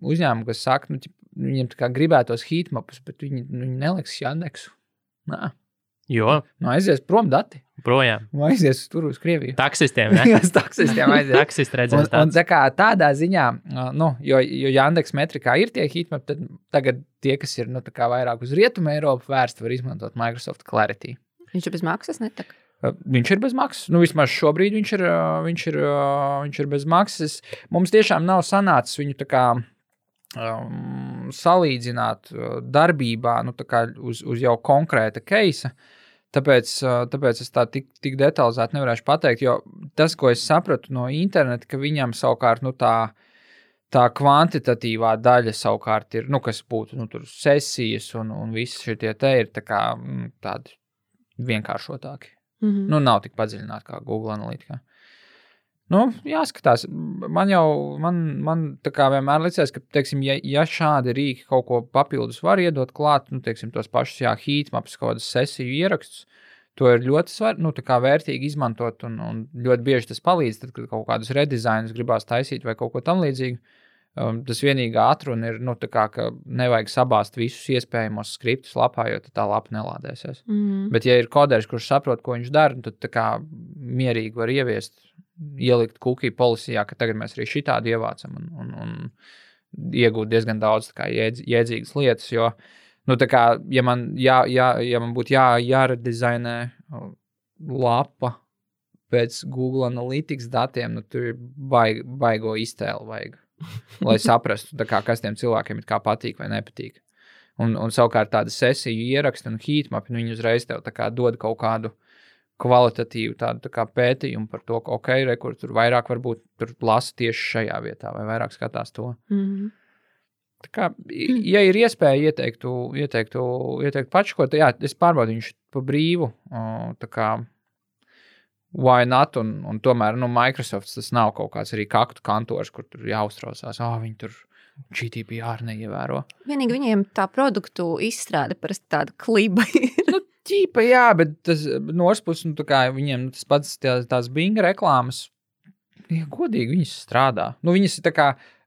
uzņēmumi, kas saka, viņiem tā kā gribētos heatmapus, bet viņi neliks Yandexu. Nā. Jo? Aizies prom dati. Projām. Aizies tur uz Krieviju. Taksistiem, ne? Jā, taksistiem aizies. Taksist redzēs tāds. Un tā kā tādā ziņā, jo Yandex metrikā ir tie heatmapi, tad tagad tie, kas ir, tā kā vairāk uz Rietumu Eiropu vērsti, var izmantot Microsoft Clarity. Viņš bez maksas netak? Viņš ir bez maksas. Nu, vismaz šobrīd viņš ir bez maksas. Mums tiešām nav sanācis viņu tā kā salīdzināt darbībā uz jau konkrēta keisa. Tāpēc es tā tik detalizēti nevarēšu pateikt, jo tas, ko es sapratu no interneta, ka viņam savukārt tā kvantitatīvā daļa savukārt ir, kas būtu tur sesijas un visi šie te ir tā kā tādi vienkāršotāki. Nav tik padziļināti kā Google Analytica. Jāskatās. Man tā kā vienmēr licies, ka, teiksim, ja šādi rīki kaut ko papildus var iedot klāt, teiksim, tos pašus, heatmaps, kaut kādas sesiju ierakstus, to ir ļoti vērtīgi izmantot un ļoti bieži tas palīdz, tad, kad kaut kādus redizainus gribās taisīt vai kaut ko tam līdzīgu. Tas vienīgā atruna ir, ka nevajag sabāzt visus iespējamos skriptus lapā, jo tā lapa nelādēsies. Bet, ja ir koderis, kurš saprot, ko viņš dara, tad tā kā mierīgi var ielikt cookie policijā, ka tagad mēs arī šitādi ievācam un iegūt diezgan daudz tā kā jēdzīgas lietas, jo, tā kā, ja man būtu jāredizainē lapa pēc Google Analytics datiem, tur ir baigo iztēli vajag. Lai saprastu, kas tiem cilvēkiem ir kā patīk vai nepatīk. Un savukārt tāda sesiju ieraksta un heatmap, viņi uzreiz tev dod kaut kādu kvalitatīvu tādu pētījumu par to, ka kur tur vairāk varbūt tur lasa tieši šajā vietā vai vairāk skatās to. Tā kā, ja ir iespēja ieteiktu pačkot, es pārbaudu viņš pa brīvu, tā kā why not, un tomēr, Microsoft tas nav kaut kāds arī kaktu kantors, kur tur jāuztraucās, viņi tur GDPR neievēro. Vienīgi viņiem tā produktu izstrāde parasti tāda kliba ir. Ķīpa, jā, bet tas norspus, viņiem tas pats tās Bing reklāmas, godīgi viņas strādā.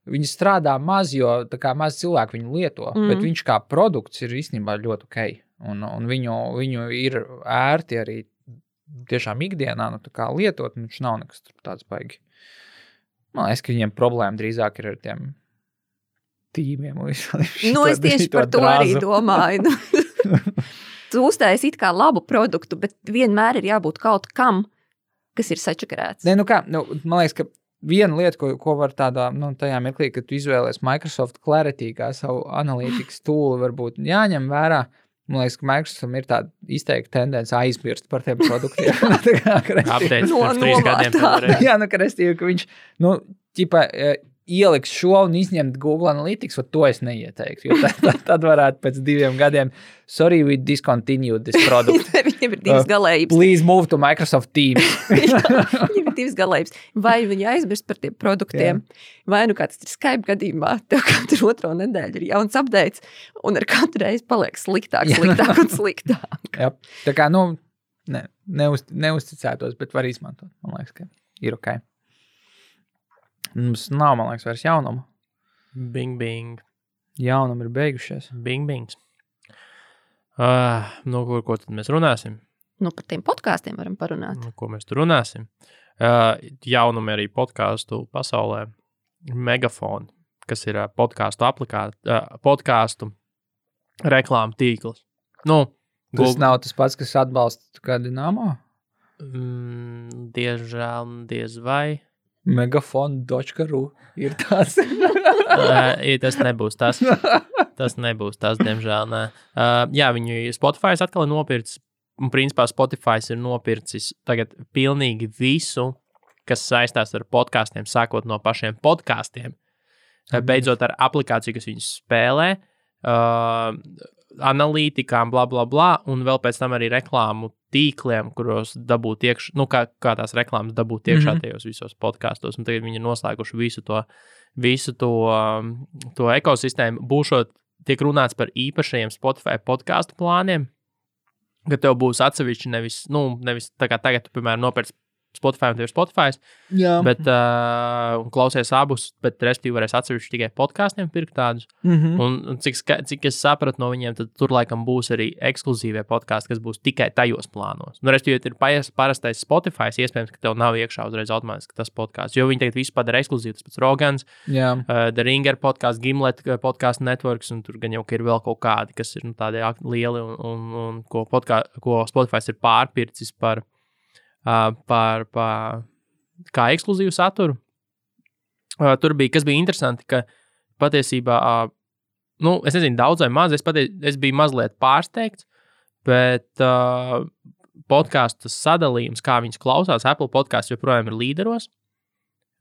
Viņas strādā maz, jo maz cilvēku viņu lieto, bet viņš kā produkts ir īstenībā ļoti ok. Un viņu ir ērti arī tiešām ikdienā, lietot, un viņš nav nekas tāds baigi. Man liekas, ka viņiem problēma drīzāk ir ar tiem tīmiem. Es tieši par to arī domāju. Tu uztaisi it kā labu produktu, bet vienmēr ir jābūt kaut kam, kas ir sačakarēts. Man liekas, ka viena lieta, ko var tādā, tajā mirklī, kad tu izvēlies Microsoft Clarity kā savu analītikas tool, varbūt jāņem vērā. Man liekas, ka Microsoft ir tāda izteikta tendence aizmirst par tiem produktiem. Apteicis pirms 3 gadiem. Jā, ka viņš, ieliks šo un izņemt Google Analytics, to es neieteiktu, jo tad varētu pēc 2 gadiem, sorry, we discontinued this product. Viņam ir 2 galējības. Please move to Microsoft Teams. Viņam ir 2 galējības. Vai viņi aizmirst par tiem produktiem, vai kāds ir Skype gadījumā, tev katru 2. nedēļu ir jauns updates, un ar katru reizi paliek sliktāk un sliktāk. Jā, tā kā, neuzticētos, bet var izmantot. Man liekas, ka ir ok. Mums nav, man liekas, vairs jaunumu. Bing, bing. Jaunumi ir beigušies. Bing, bings. Ko tad mēs runāsim? Par tiem podkāstiem varam parunāt. Ko mēs tur runāsim? Jaunumi arī podkāstu pasaulē. Megafon, kas ir podkāstu reklāmu tīkls. Tas nav tas pats, kas atbalsta kādu Dinamo? Diezžēl, diez vai. Megafon.ru ir tāds. Tas nebūs tas. Tas nebūs tas, diemžēl. Nē. Viņu Spotify atkal ir nopircis. Un principā Spotify ir nopircis tagad pilnīgi visu, kas saistās ar podkāstiem, sākot no pašiem podkāstiem. Beidzot ar aplikāciju, kas viņus spēlē, analītikām, bla, bla, bla, un vēl pēc tam arī reklāmu tīkliem, kuros dabūt iekšā, kā tās reklāmas dabūt iekšā tajos visos podkāstos, un tagad viņi ir noslēguši visu to ekosistēmu. Tiek runāts par īpašajiem Spotify podkāstu plāniem, ka tev būs atsevišķi nevis tā kā tagad, tu, piemēram, nopērc Spotify un tev ir Spotify, bet klausies abus, bet respektīvi varēs atsevišķi tikai podkāstiem pirkt tādus. Un cik es sapratu no viņiem, tad tur laikam būs arī ekskluzīvie podkāsti, kas būs tikai tajos plānos. Respektīvi, ja ir parastais Spotify, iespējams, ka tev nav iekšā uzreiz automātiski tas podkāsts, jo viņi tagad visu padara ekskluzīvi, tas pats Rogans, The Ringer podkāsts, Gimlet podkāstu networks, un tur gan jau ir vēl kaut kādi, kas ir tādi lieli un ko Spotify ir pārpircis par par kā ekskluzīvu saturu. Tur bija, kas bija interesanti, ka patiesībā, es nezinu, daudz vai maz, es biju mazliet pārsteigts, bet podcastu sadalījums, kā viņas klausās, Apple podcasts joprojām ir līderos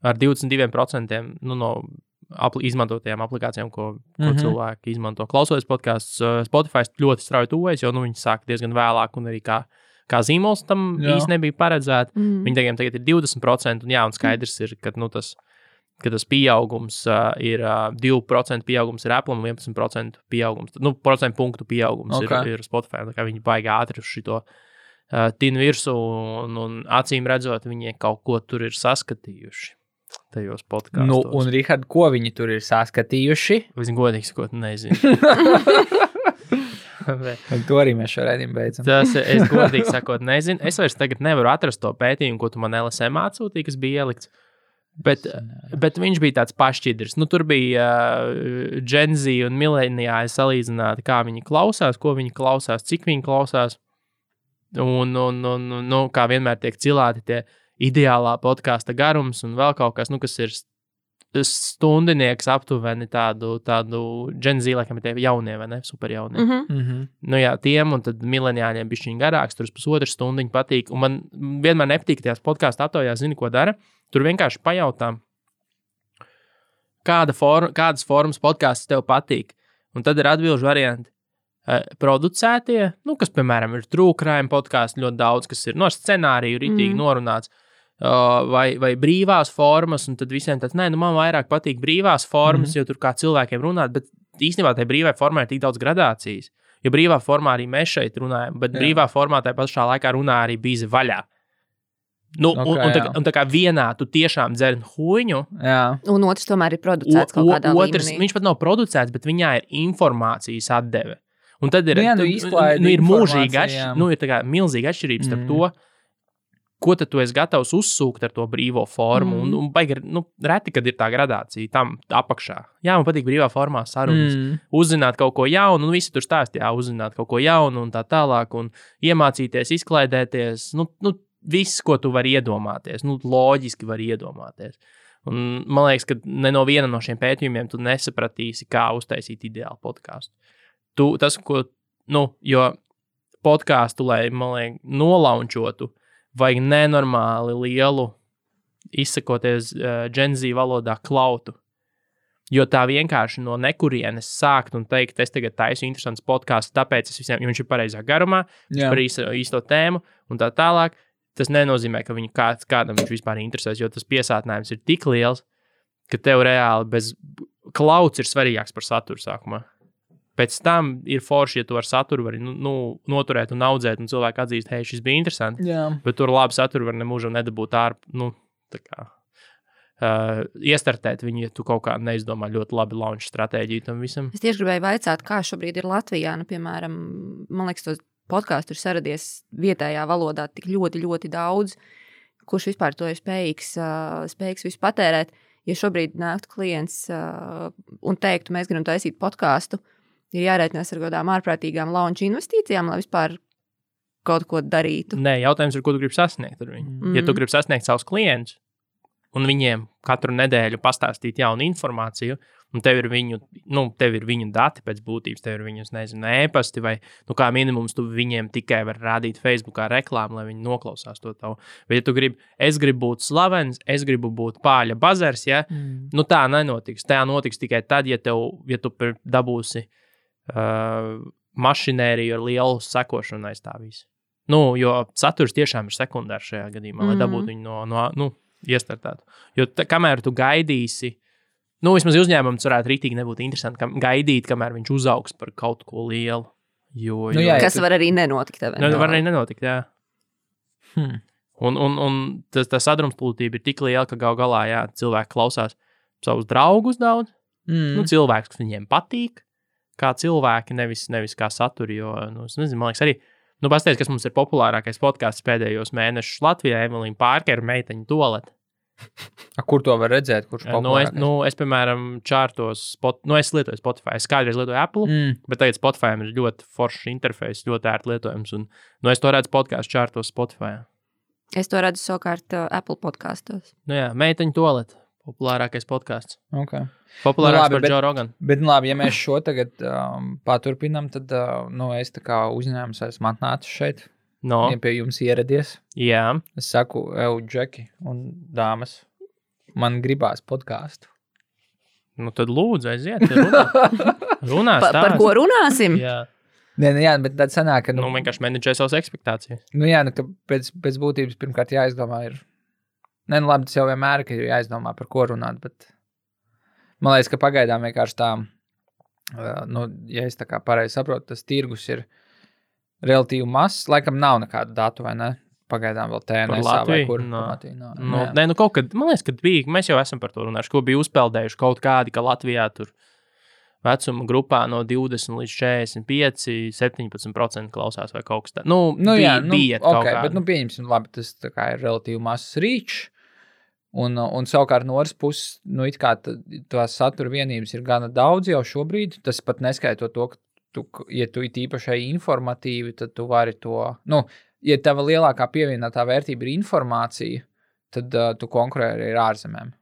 ar 22% no izmantotajām aplikācijām, ko cilvēki izmanto. Klausoties podcasts, Spotify ļoti strauji tuvojas, jo viņi sāk diezgan vēlāk un arī kā zīmols tam īsti nebija paredzēta. Viņi tagad ir 20%, un skaidrs ir, ka tas pieaugums ir 2% pieaugums ir Apple un 11% pieaugums. Procentu punktu pieaugums ir Spotify. Tā kā viņi baigi ātri uz šito tinu virsū un acīm redzot, viņi kaut ko tur ir saskatījuši tajos podkastos. Un, Rihard, ko viņi tur ir saskatījuši? Es godīgi sakot, nezinu. To arī mēs šo raidījumu beidzam. Es godīgi sakot, nezinu. Es vairs tagad nevaru atrast to pētījumu, ko tu man LSM atsūtīji, kas bija ielikts. Bet viņš bija tāds pašķidrs. Tur bija Gen Z un millenniāli salīdzināti, kā viņi klausās, ko viņi klausās, cik viņi klausās. Un kā vienmēr tiek cilāti tie ideālā podkāsta garums un vēl kaut kas, kas ir stundinieks aptuveni tādu Gen Z, laikam ir tie jaunie, vai ne? Super jaunie. Tiem un tad millenniāļiem bišķiņ garāks, tur pusotru stundiņu patīk. Un man vienmēr nepatīk tajās podkāstu aptaujās, zini, ko dara. Tur vienkārši pajautā, kādas formas podkāsts tev patīk. Un tad ir atbilžu varianti. Producētie, kas, piemēram, ir true crime podkāsti ļoti daudz, kas ir no scenāriju ritīgi norunāts. Vai brīvās formas, un tad visiem tāds, man vairāk patīk brīvās formas, jo tur kā cilvēkiem runāt, bet īstenībā tai brīvai formai ir tik daudz gradācijas. Jo brīvā formā arī mēs šeit runājam, bet brīvā formā tai pašā laikā runā arī bīzi vaļā. Un tā kā vienā tu tiešām dzer huņu. Un otrs tomēr ir producēts kaut kādā līmenī. Viņš pat nav producēts, bet viņā ir informācijas atdeve. Un tad ir, ir mūžīga ir tā kā milzīga atšķirība starp to, ko tad tu esi gatavs uzsūkt ar to brīvo formu. Un baigi, reti, kad ir tā gradācija tam apakšā. Jā, man patīk brīvā formā sarunas. Uzzināt kaut ko jaunu, un visi tur stāstīja, uzzināt kaut ko jaunu un tā tālāk, un iemācīties, izklaidēties, viss, ko tu vari iedomāties, loģiski vari iedomāties. Un man liekas, ka ne no viena no šiem pētījumiem tu nesapratīsi, kā uztaisīt ideālu podkāstu. Jo podkāstu, lai, man liekas, nolaunčotu, vajag nenormāli lielu, izsakoties Gen Z valodā, klautu. Jo tā vienkārši no nekurienes sākt un teikt, es tagad taisu interesants podkāsts, tāpēc es visiem, jo viņš ir pareizā garumā, viņš par īsto tēmu un tā tālāk. Tas nenozīmē, ka viņu kādam viņš vispār interesēs, jo tas piesātinājums ir tik liels, ka tev reāli bez klauts ir svarīgāks par saturu sākumā. Pēc tam ir forši, ja tu ar saturu vari noturēt un audzēt, un cilvēki atzīst, hei, šis bija interesanti, bet tur labi saturu var nemūžam nedabūt iestartēt viņu, ja tu kaut kā neizdomā ļoti labi launch stratēģiju tam visam. Es tieši gribēju vaicāt, kā šobrīd ir Latvijā, piemēram, man liekas, tos podkāstu ir saradies vietējā valodā tik ļoti, ļoti daudz, kurš vispār to ir spējīgs visu patērēt. Ja šobrīd nāktu klients un teiktu, mēs gribam taisīt podkāstu, ir jārēķinās ar kādām ārprātīgām launch investīcijām, lai vispār kaut ko darītu. Nē, jautājums ir, ko tu gribi sasniegt ar viņu. Ja tu gribi sasniegt savus klientus un viņiem katru nedēļu pastāstīt jaunu informāciju, un tev ir viņu dati pēc būtības, tev ir viņus, e-pasti, vai, kā minimums tu viņiem tikai var rādīt Facebookā reklāmu, lai viņi noklausās to tavu. Bet ja tu gribi, es gribu būt slavens, es gribu būt pāļa bazars, tā nenotiks. Tā notiks tikai tad, ja tu dabūsi mašinēriju ar lielu sekošanu aiz tā visu. Jo saturs tiešām ir sekundārs šajā gadījumā, lai dabūtu viņu iestartētu. Jo kamēr tu gaidīsi, vismaz uzņēmums varētu rītīgi nebūt interesanti, gaidīt, kamēr viņš uzaugs par kaut ko lielu. Kas var arī nenotikt. Var arī nenotikt, jā. Un tā sadrumstalība ir tik liela, ka gal galā, cilvēki klausās savus draugus daudz, cilvēkus, kas viņiem patīk, kā cilvēki, nevis kā saturi, jo, es nezinu, man liekas arī, pastāstiet, kas mums ir populārākais podcasts pēdējos mēnešus Latvijā, Evelīna Pārkera meiteņu toalete. Kur to var redzēt? Kurš populārākais? Es, piemēram, čārtos, es lietoju Spotify, es kādreiz lietoju Apple, bet tagad Spotify ir ļoti foršs interfejs, ļoti ērti lietojams, un es to redzu podcastu čārtos Spotify. Es to redzu savukārt Apple podkastos. Nu jā, meiteņu toalete. Populārākais podkāsts. Okay. Populārāks par Joe Rogan. Bet labi, ja mēs šo tagad paturpinam, tad es tā kā uzņēmums esmu atnācis šeit. No. Ja pie jums ieradies. Jā. Es saku, Džeki un dāmas, man gribās podkāstu. Nu tad lūdzu, aiziet. Runās par ko runāsim? Jā. Nē, bet tad sanāk, ka... Nu, vienkārši menedžē savas ekspektācijas. Nu jā, ka pēc būtības pirmkārt jāizdomā ir... Nē, nu labi, tas jau vienmēr ir jāizdomā, par ko runāt, bet man liekas, ka pagaidām vienkārši tā, ja es tā kā pareizi saprotu, tas tirgus ir relatīvi mazs, laikam nav nekādu datu, vai ne? Pagaidām vēl TNS vai kur. Nē, kaut kad, man liekas, kad bija, mēs jau esam par to runājuši, ko bija uzpeldējuši kaut kādi, ka Latvijā tur vecuma grupā no 20 līdz 45, 17% klausās vai kaut kas tā. Bija kaut kā. Bet, pieņemsim, labi, tas tā kā ir relatīvi mazs reach, un savukārt no otras puses, it kā tās satura vienības ir gana daudz jau šobrīd, tas pat neskaitot to, ka ja tu it īpašai informatīvi, tad tu vari to, ja tava lielākā pievienotā vērtība ir informācija, tad tu konkurē arī ar ārzemēm.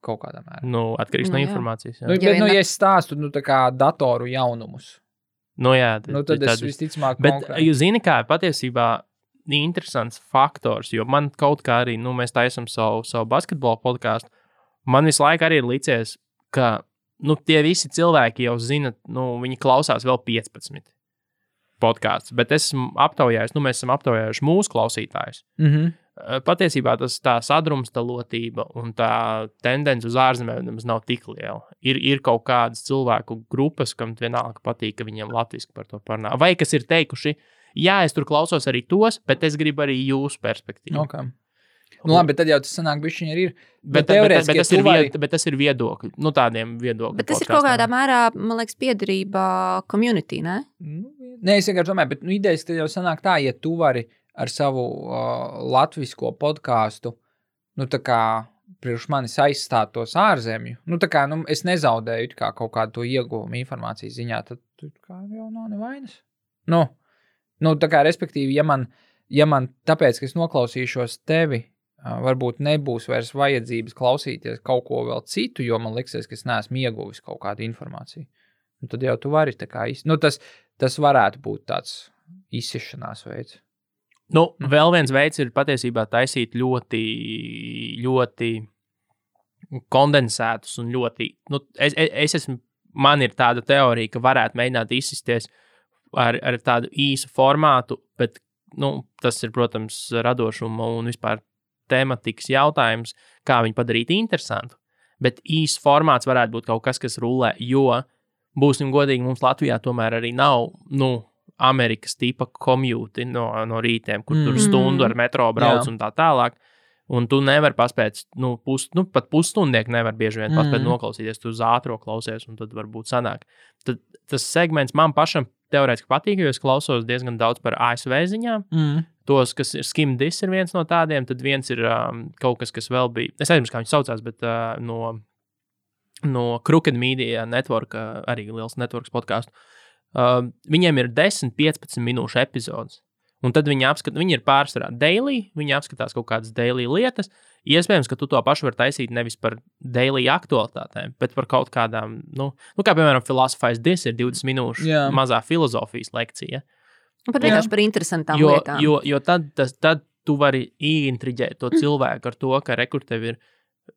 Kaut kādā mērā. Atkarīgs no informācijas. Jā. Bet, ja es stāstu, tā kā datoru jaunumus. Jā. Tad es visticamāk konkurēju. Bet jūs zini, kā patiesībā interesants faktors, jo man kaut kā arī, mēs taisam savu basketbolu podkāstu, man visu laiku arī ir licies, ka, tie visi cilvēki jau zina, viņi klausās vēl 15 podkāstus, bet es esmu aptaujājis, mēs esam aptaujājuši mūsu klausītājus. Mhm. Patiesībā tā sadrumstalotība un tā tendence uz ārzemēm nemaz nav tik liela. Ir kaut kādas cilvēku grupas, kam vienalga patīk, ka viņiem latviski par to parunā. Vai kas ir teikuši, jā, es tur klausos arī tos, bet es gribu arī jūsu perspektīvu. Okay. Labi, bet tad jau tas sanāk bišķiņi arī ir. Bet tas ir viedokļi. Tādiem viedokļiem. Bet tas ir kaut kādā mērā, man liekas, piederība community, ne? Nē, es vienkārši domāju, bet idejas tad jau sanāk tā, ja tu vari ar savu latvisko podkāstu, tā kā priekš manis aizstāt tos ārzemju, es nezaudēju kā kaut kādu to ieguvumu informācijas ziņā, tad kā jau nav nevainas. Tā kā respektīvi, ja man tāpēc, ka es noklausīšos tevi, varbūt nebūs vairs vajadzības klausīties kaut ko vēl citu, jo man liksies, ka es neesmu ieguvis kaut kādu informāciju. Tad jau tu vari tā kā tas varētu būt tāds izsišanās veids. Vēl viens veids ir patiesībā taisīt ļoti, ļoti kondensētus un ļoti, man ir tāda teorija, ka varētu mēģināt izsisties ar tādu īsu formātu, bet, tas ir, protams, radošuma un vispār tematikas jautājums, kā viņu padarīt interesantu. Bet īsts formāts varētu būt kaut kas, kas rulē, jo, būsim godīgi, mums Latvijā tomēr arī nav, Amerikas tipa komjūti no rītiem, kur tur stundu ar metro brauc un tā tālāk. Un tu nevari paspēt, pat pusstundieki nevar bieži vien paspēt noklausīties, tu uz ātro klausies, un tad varbūt sanāk. Tad tas segments man pašam teorētiski patīk, jo es klausos diezgan daudz par ASV ziņām. Tos, kas ir SkimDis ir viens no tādiem, tad viens ir kaut kas vēl bija, es aizmirsu, kā viņš saucās, bet no Crooked Media Network, arī liels networks podcastu. Viņiem ir 10-15 minūšu epizodes. Un tad viņi ir pārsvarā daily, viņi apskatās kaut kādas daily lietas. Iespējams, ka tu to pašu vari taisīt nevis par daily aktualitātēm, bet par kaut kādām, kā piemēram Philosophize This ir 20 minūšu mazā filozofijas lekcija. Pat vienkārši par interesantām lietām. Jo tad tu vari ieintriģēt to cilvēku ar to, ka tev ir,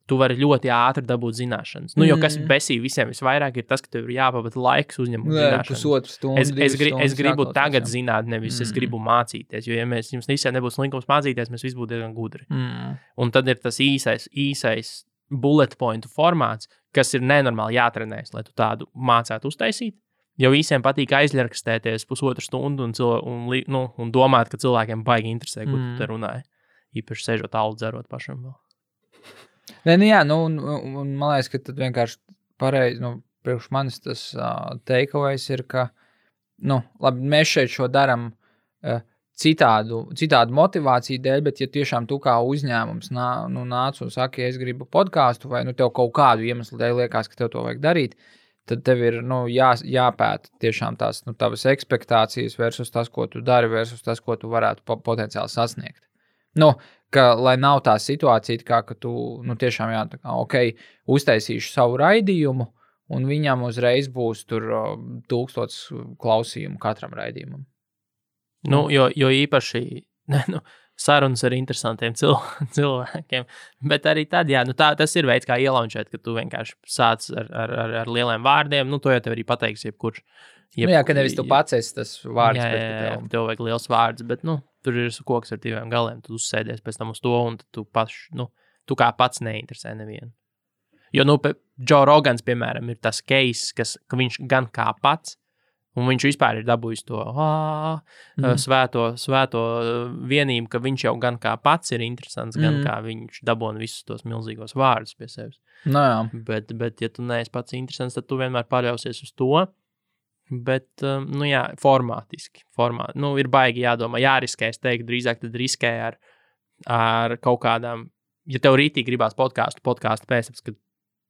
tu vari ļoti ātri dabūt zināšanas. Jo kas besī visiem visvairāk ir tas, ka tev ir jāpavada laiks uzņemot zināšanas. Es gribu tagad zināt, nevis es gribu mācīties, jo ja jums visiem nebūs linkums mācīties, mēs visi būtu diezgan gudri. Un tad ir tas īsais bullet point formāts, kas ir nenormāli jātrenēs, lai tu tādu mācētu uztaisīt. Jo visiem patīk aizļarkstēties pusotru stundu un domāt, ka cilvēkiem baigi interesē, ko tu te runāji. Īpaši sēžot alu dzerot pašam vēl. Un man liekas, ka tad vienkārši pareizi, priekš manis tas takeaways ir, ka, labi, mēs šeit šo daram citādu motivāciju dēļ, bet ja tiešām tu kā uzņēmums nāc un saki, es gribu podkāstu, vai tev kaut kādu iemeslu dēļ liekas, ka tev to vajag darīt, tad tev ir jāpēta tiešām tās tavas ekspektācijas versus tas, ko tu dari, versus tas, ko tu varētu potenciāli sasniegt. Nu, ka, lai nav tā situācija, kā, ka tu tiešām uztaisīšu savu raidījumu, un viņam uzreiz būs tur 1000 klausījumu katram raidījumam. Jo īpaši sarunas ar interesantiem cilvēkiem, bet arī tad, tas ir veids, kā ielaunčēt, ka tu vienkārši sāc ar lieliem vārdiem, to jau tev arī pateiks jebkurš. Ka nevis tu pats esi tas vārds, bet tev vajag liels vārds, bet, tur ir koks ar 2 galiem, tu uzsēdies pēc tam uz to, un tu tu kā pats neinteresē nevienu. Jo, Joe Rogans, piemēram, ir tas case, ka viņš gan kā pats, un viņš vispār ir dabūjis to svēto vienību, ka viņš jau gan kā pats ir interesants, gan kā viņš dabūna visus tos milzīgos vārdus pie sevis. Bet, ja tu neesi pats interesants, tad tu vienmēr paļausies uz to. Bet, formātiski. Ir baigi jādomā, jāriskē, es teiktu, drīzāk tad riskē ar kaut kādām, ja tev rītīgi gribās podcastu pēc, kad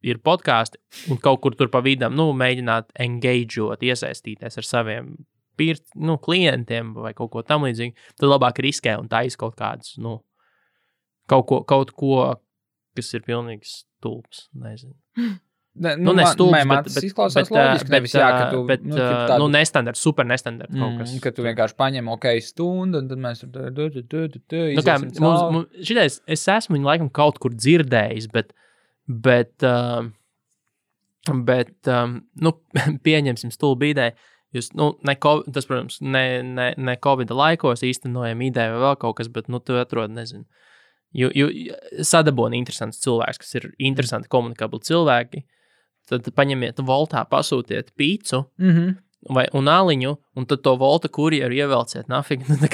ir podkāsti, un kaut kur tur pa vidam, mēģināt engageot, iesaistīties ar saviem klientiem vai kaut ko tam līdzīgi, tad labāk riskē un taisa kaut kādus, kaut ko, kas ir pilnīgi stulbs, nezinu. Man tas izklausās loģiski, nevis ka tu... nestandards, super nestandards kaut kas. Ka tu vienkārši paņem stundu, un tad mēs šitais, es esmu viņu laikam kaut kur dzirdējis, bet pieņemsim stulbu ideju. Jūs, tas, protams, ne Covid laikos īstenojam ideju vai vēl kaut kas, bet, tu atrod, nezinu. Sadaboni interesants cilvēks, kas ir interesanti komunikabli cilvēki, tad paņemiet voltā, pasūtiet pīcu un aliņu, un tad to volta kurjeru ievelciet nafīgi, tā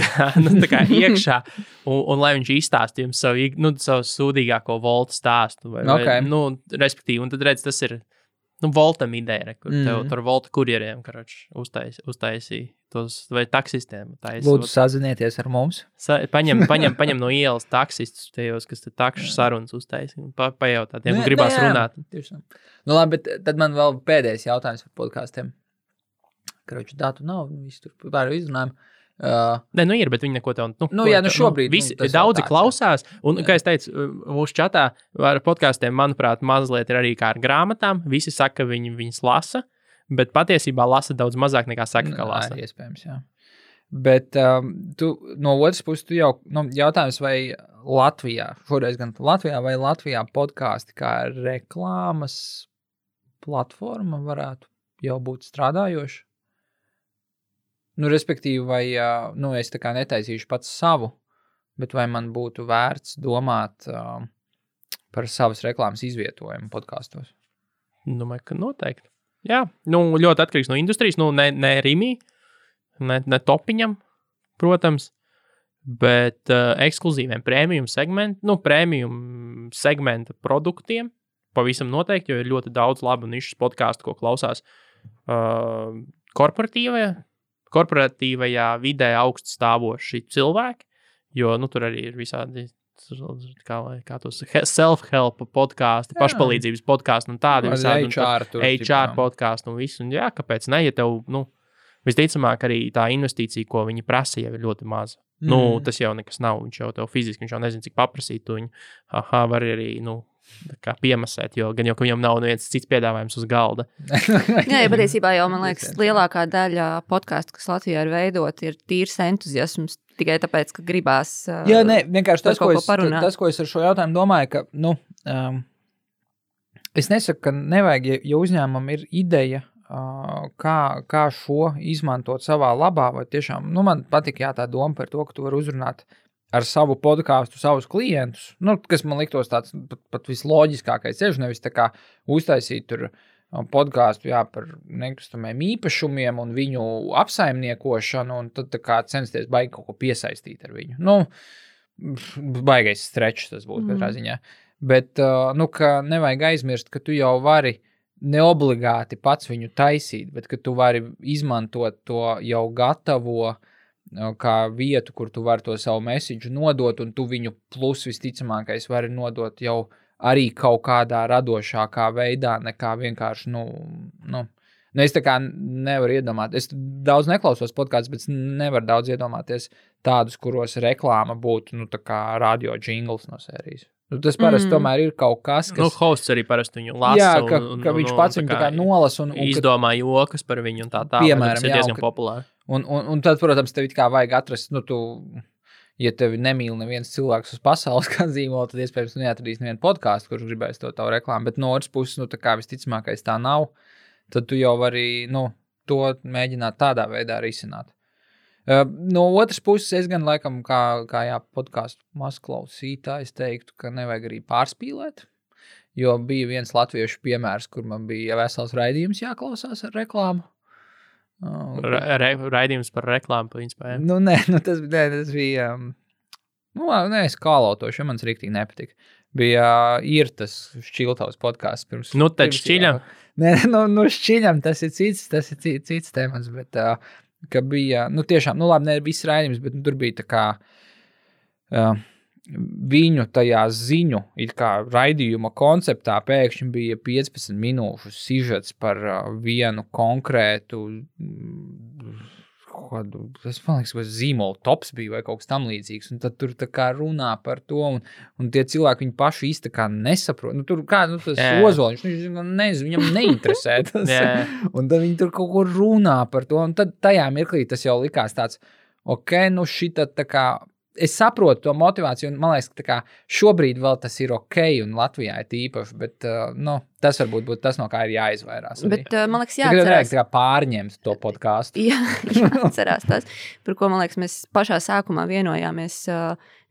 kā iekšā, un lai viņš izstāst jums savu sūdīgāko volta stāstu, respektīvi, un tad redz, tas ir, voltam ideja, kur tev tur volta kurjeriem, uztaisīja tos, vai taksistiem. Lūdzu, sazinieties ar mums. Paņem no ielas taksistus tajos, kas te takšu sarunas uztaisīja, un pajautā tiem, un gribās runāt. Labi, bet tad man vēl pēdējais jautājums par podkāstiem. Datu nav, visi tur pār izrunājam. Ir, bet viņi neko tev... šobrīd... Visi, daudzi klausās, un, kā es teicu, mūsu čatā ar podkāstiem, manuprāt, mazliet ir arī kā ar grāmatām. Visi saka, ka viņas lasa, bet patiesībā lasa daudz mazāk nekā saka, ka lasa. Iespējams, jā. Bet tu no otras puses, tu jau jautājums, vai Latvijā, šoreiz gan Latvijā vai Latvijā podkāsti kā reklāmas platforma varētu jau būt strādājoša? Respektīvi, vai es tā kā netaisīšu pats savu, bet vai man būtu vērts domāt par savas reklāmas izvietojumu podkastos? Domāju, ka noteikti. Jā, ļoti atkarīgs no industrijas, ne Rimī, ne Topiņam, protams, bet ekskluzīviem premium segmenta produktiem pavisam noteikti, jo ir ļoti daudz labu nišas podcastu, ko klausās korporatīvajā vidē augstu stāvoši cilvēki, jo, tur arī ir visādi, kā tos self-help podkāsti, pašpalīdzības podkāsti un tādi visādi. HR podkāsti un visu. Un jā, kāpēc ne, ja tev, visticamāk arī tā investīcija, ko viņi prasa, jau ir ļoti maza. Tas jau nekas nav, viņš jau tev fiziski, viņš jau nezin, cik paprasīt, tu viņu, var arī, kā piemasēt, jo viņam nav neviens cits piedāvājums uz galda. Jā, patiesībā jau, man liekas, lielākā daļa podcastu, kas Latvijā ir veidot, ir tīrs entuziasms, tikai tāpēc, ka gribās vienkārši tas, ko es ar šo jautājumu domāju, ka, es nesaku, ka nevajag, ja uzņēmumam ir ideja, kā šo izmantot savā labā, vai tiešām, man patīk tā doma par to, ka tu vari uzrunāt ar savu podkāstu, savus klientus, kas man liktos tāds pat visloģiskākais ceļš, nevis tā kā uztaisīt tur podkāstu, par nekustamiem īpašumiem un viņu apsaimniekošanu, un tad tā kā censties baigi kaut ko piesaistīt ar viņu. Baigais strečs tas būtu katrā ziņā. Bet, ka nevajag aizmirst, ka tu jau vari neobligāti pats viņu taisīt, bet ka tu vari izmantot to jau gatavo kā vietu, kur tu vari to savu message nodot, un tu viņu plus visticamākais vari nodot jau arī kaut kādā radošākā veidā, nekā vienkārši, Nu, es tā kā nevaru iedomāties. Es daudz neklausos podkāstus, bet nevaru daudz iedomāties tādus, kuros reklāma būtu, tā kā radio jingles no sērijas. Tas parasti tomēr ir kaut kas, kas... hosts arī parasti viņu lasa. Jā, ka viņš pats viņu tā kā nolasa un izdomā jokas par viņu un tā. Piemēram, tas ir diezgan populāri. Un tad, protams, tev it kā vajag atrast, ja tevi nemīl neviens cilvēks uz pasaules kā zīmola, tad iespējams neatradīs nevienu podkāstu, kurš gribēs to tavu reklāmu, bet no otras puses, tā kā visticamākais tā nav, tad tu jau vari, to mēģināt tādā veidā risināt. No otras puses, es gan laikam, kā podkāstu mazklausītājs teiktu, ka nevajag arī pārspīlēt, jo bija viens latviešu piemērs, kur man bija vesels raidījums jāklausās ar reklāmu. Raidījums par reklāmu, principā, jā? Tas bija, es kālotošu, jo man riktīgi nepatika. Bija Irtas Šķiltavas podkāsts pirms... Tad šķiļam? Šķiļam, tas ir cits temats, bet... ka bija, tiešām, labi, ne viss raidījums, bet tur bija tā kā viņu tajā ziņu, it kā raidījuma konceptā pēkšņi bija 15 minūšu sižets par vienu konkrētu, es man liekas, ka zīmola tops bija vai kaut kas tam līdzīgs, un tad tur tā kā runā par to, un tie cilvēki viņu paši īsti kā nesaprot. Tur tas Ozoliņš, nezinu, viņam neinteresē tas. Un tad viņi tur kaut ko runā par to, un tad tajā mirklī tas jau likās tāds, šita tā kā, es saprotu to motivāciju, un man liekas, ka tā kā šobrīd vēl tas ir un Latvijā ir tīpaši, bet, tas varbūt būtu tas, no kā ir jāizvairās. Bet, man liekas, jāatcerās. Tā kā pārņemt to podkāstu. Jāatcerās tas, par ko, man liekas, mēs pašā sākumā vienojāmies,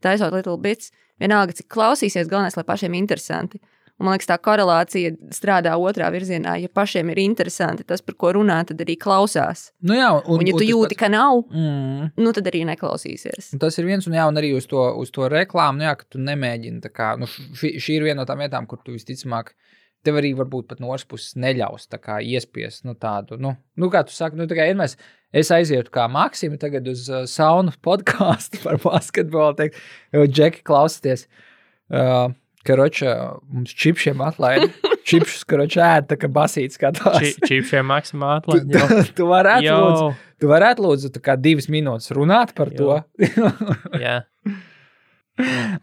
taisot Little Bits, vienalga, cik klausīsies, galvenais, lai pašiem interesanti. Un, man liekas, tā korelācija strādā otrā virzienā. Ja pašiem ir interesanti tas, par ko runā, tad arī klausās. Jā, un ja tu jūti, ka nav, tad arī neklausīsies. Un tas ir viens, un arī uz to reklāmu, ka tu nemēģini tā kā, šī ir viena no tām vietām, kur tu visticamāk, tev arī varbūt pat no otras puses neļaus tā kā iespiest, tādu, kā tu saki, tā kā vienmēr es aizietu kā Maksimi tagad uz saunu podkāstu par basketbolu, teikt, Džeki, klausieties, Karoča, mums čipšiem atlaida. Čipšus, karoča, ēd, tā kā basīts skatās. Čipšiem maksimā atlaida. Tu varētu lūdzu tā kā 2 minūtes runāt par to. Jā.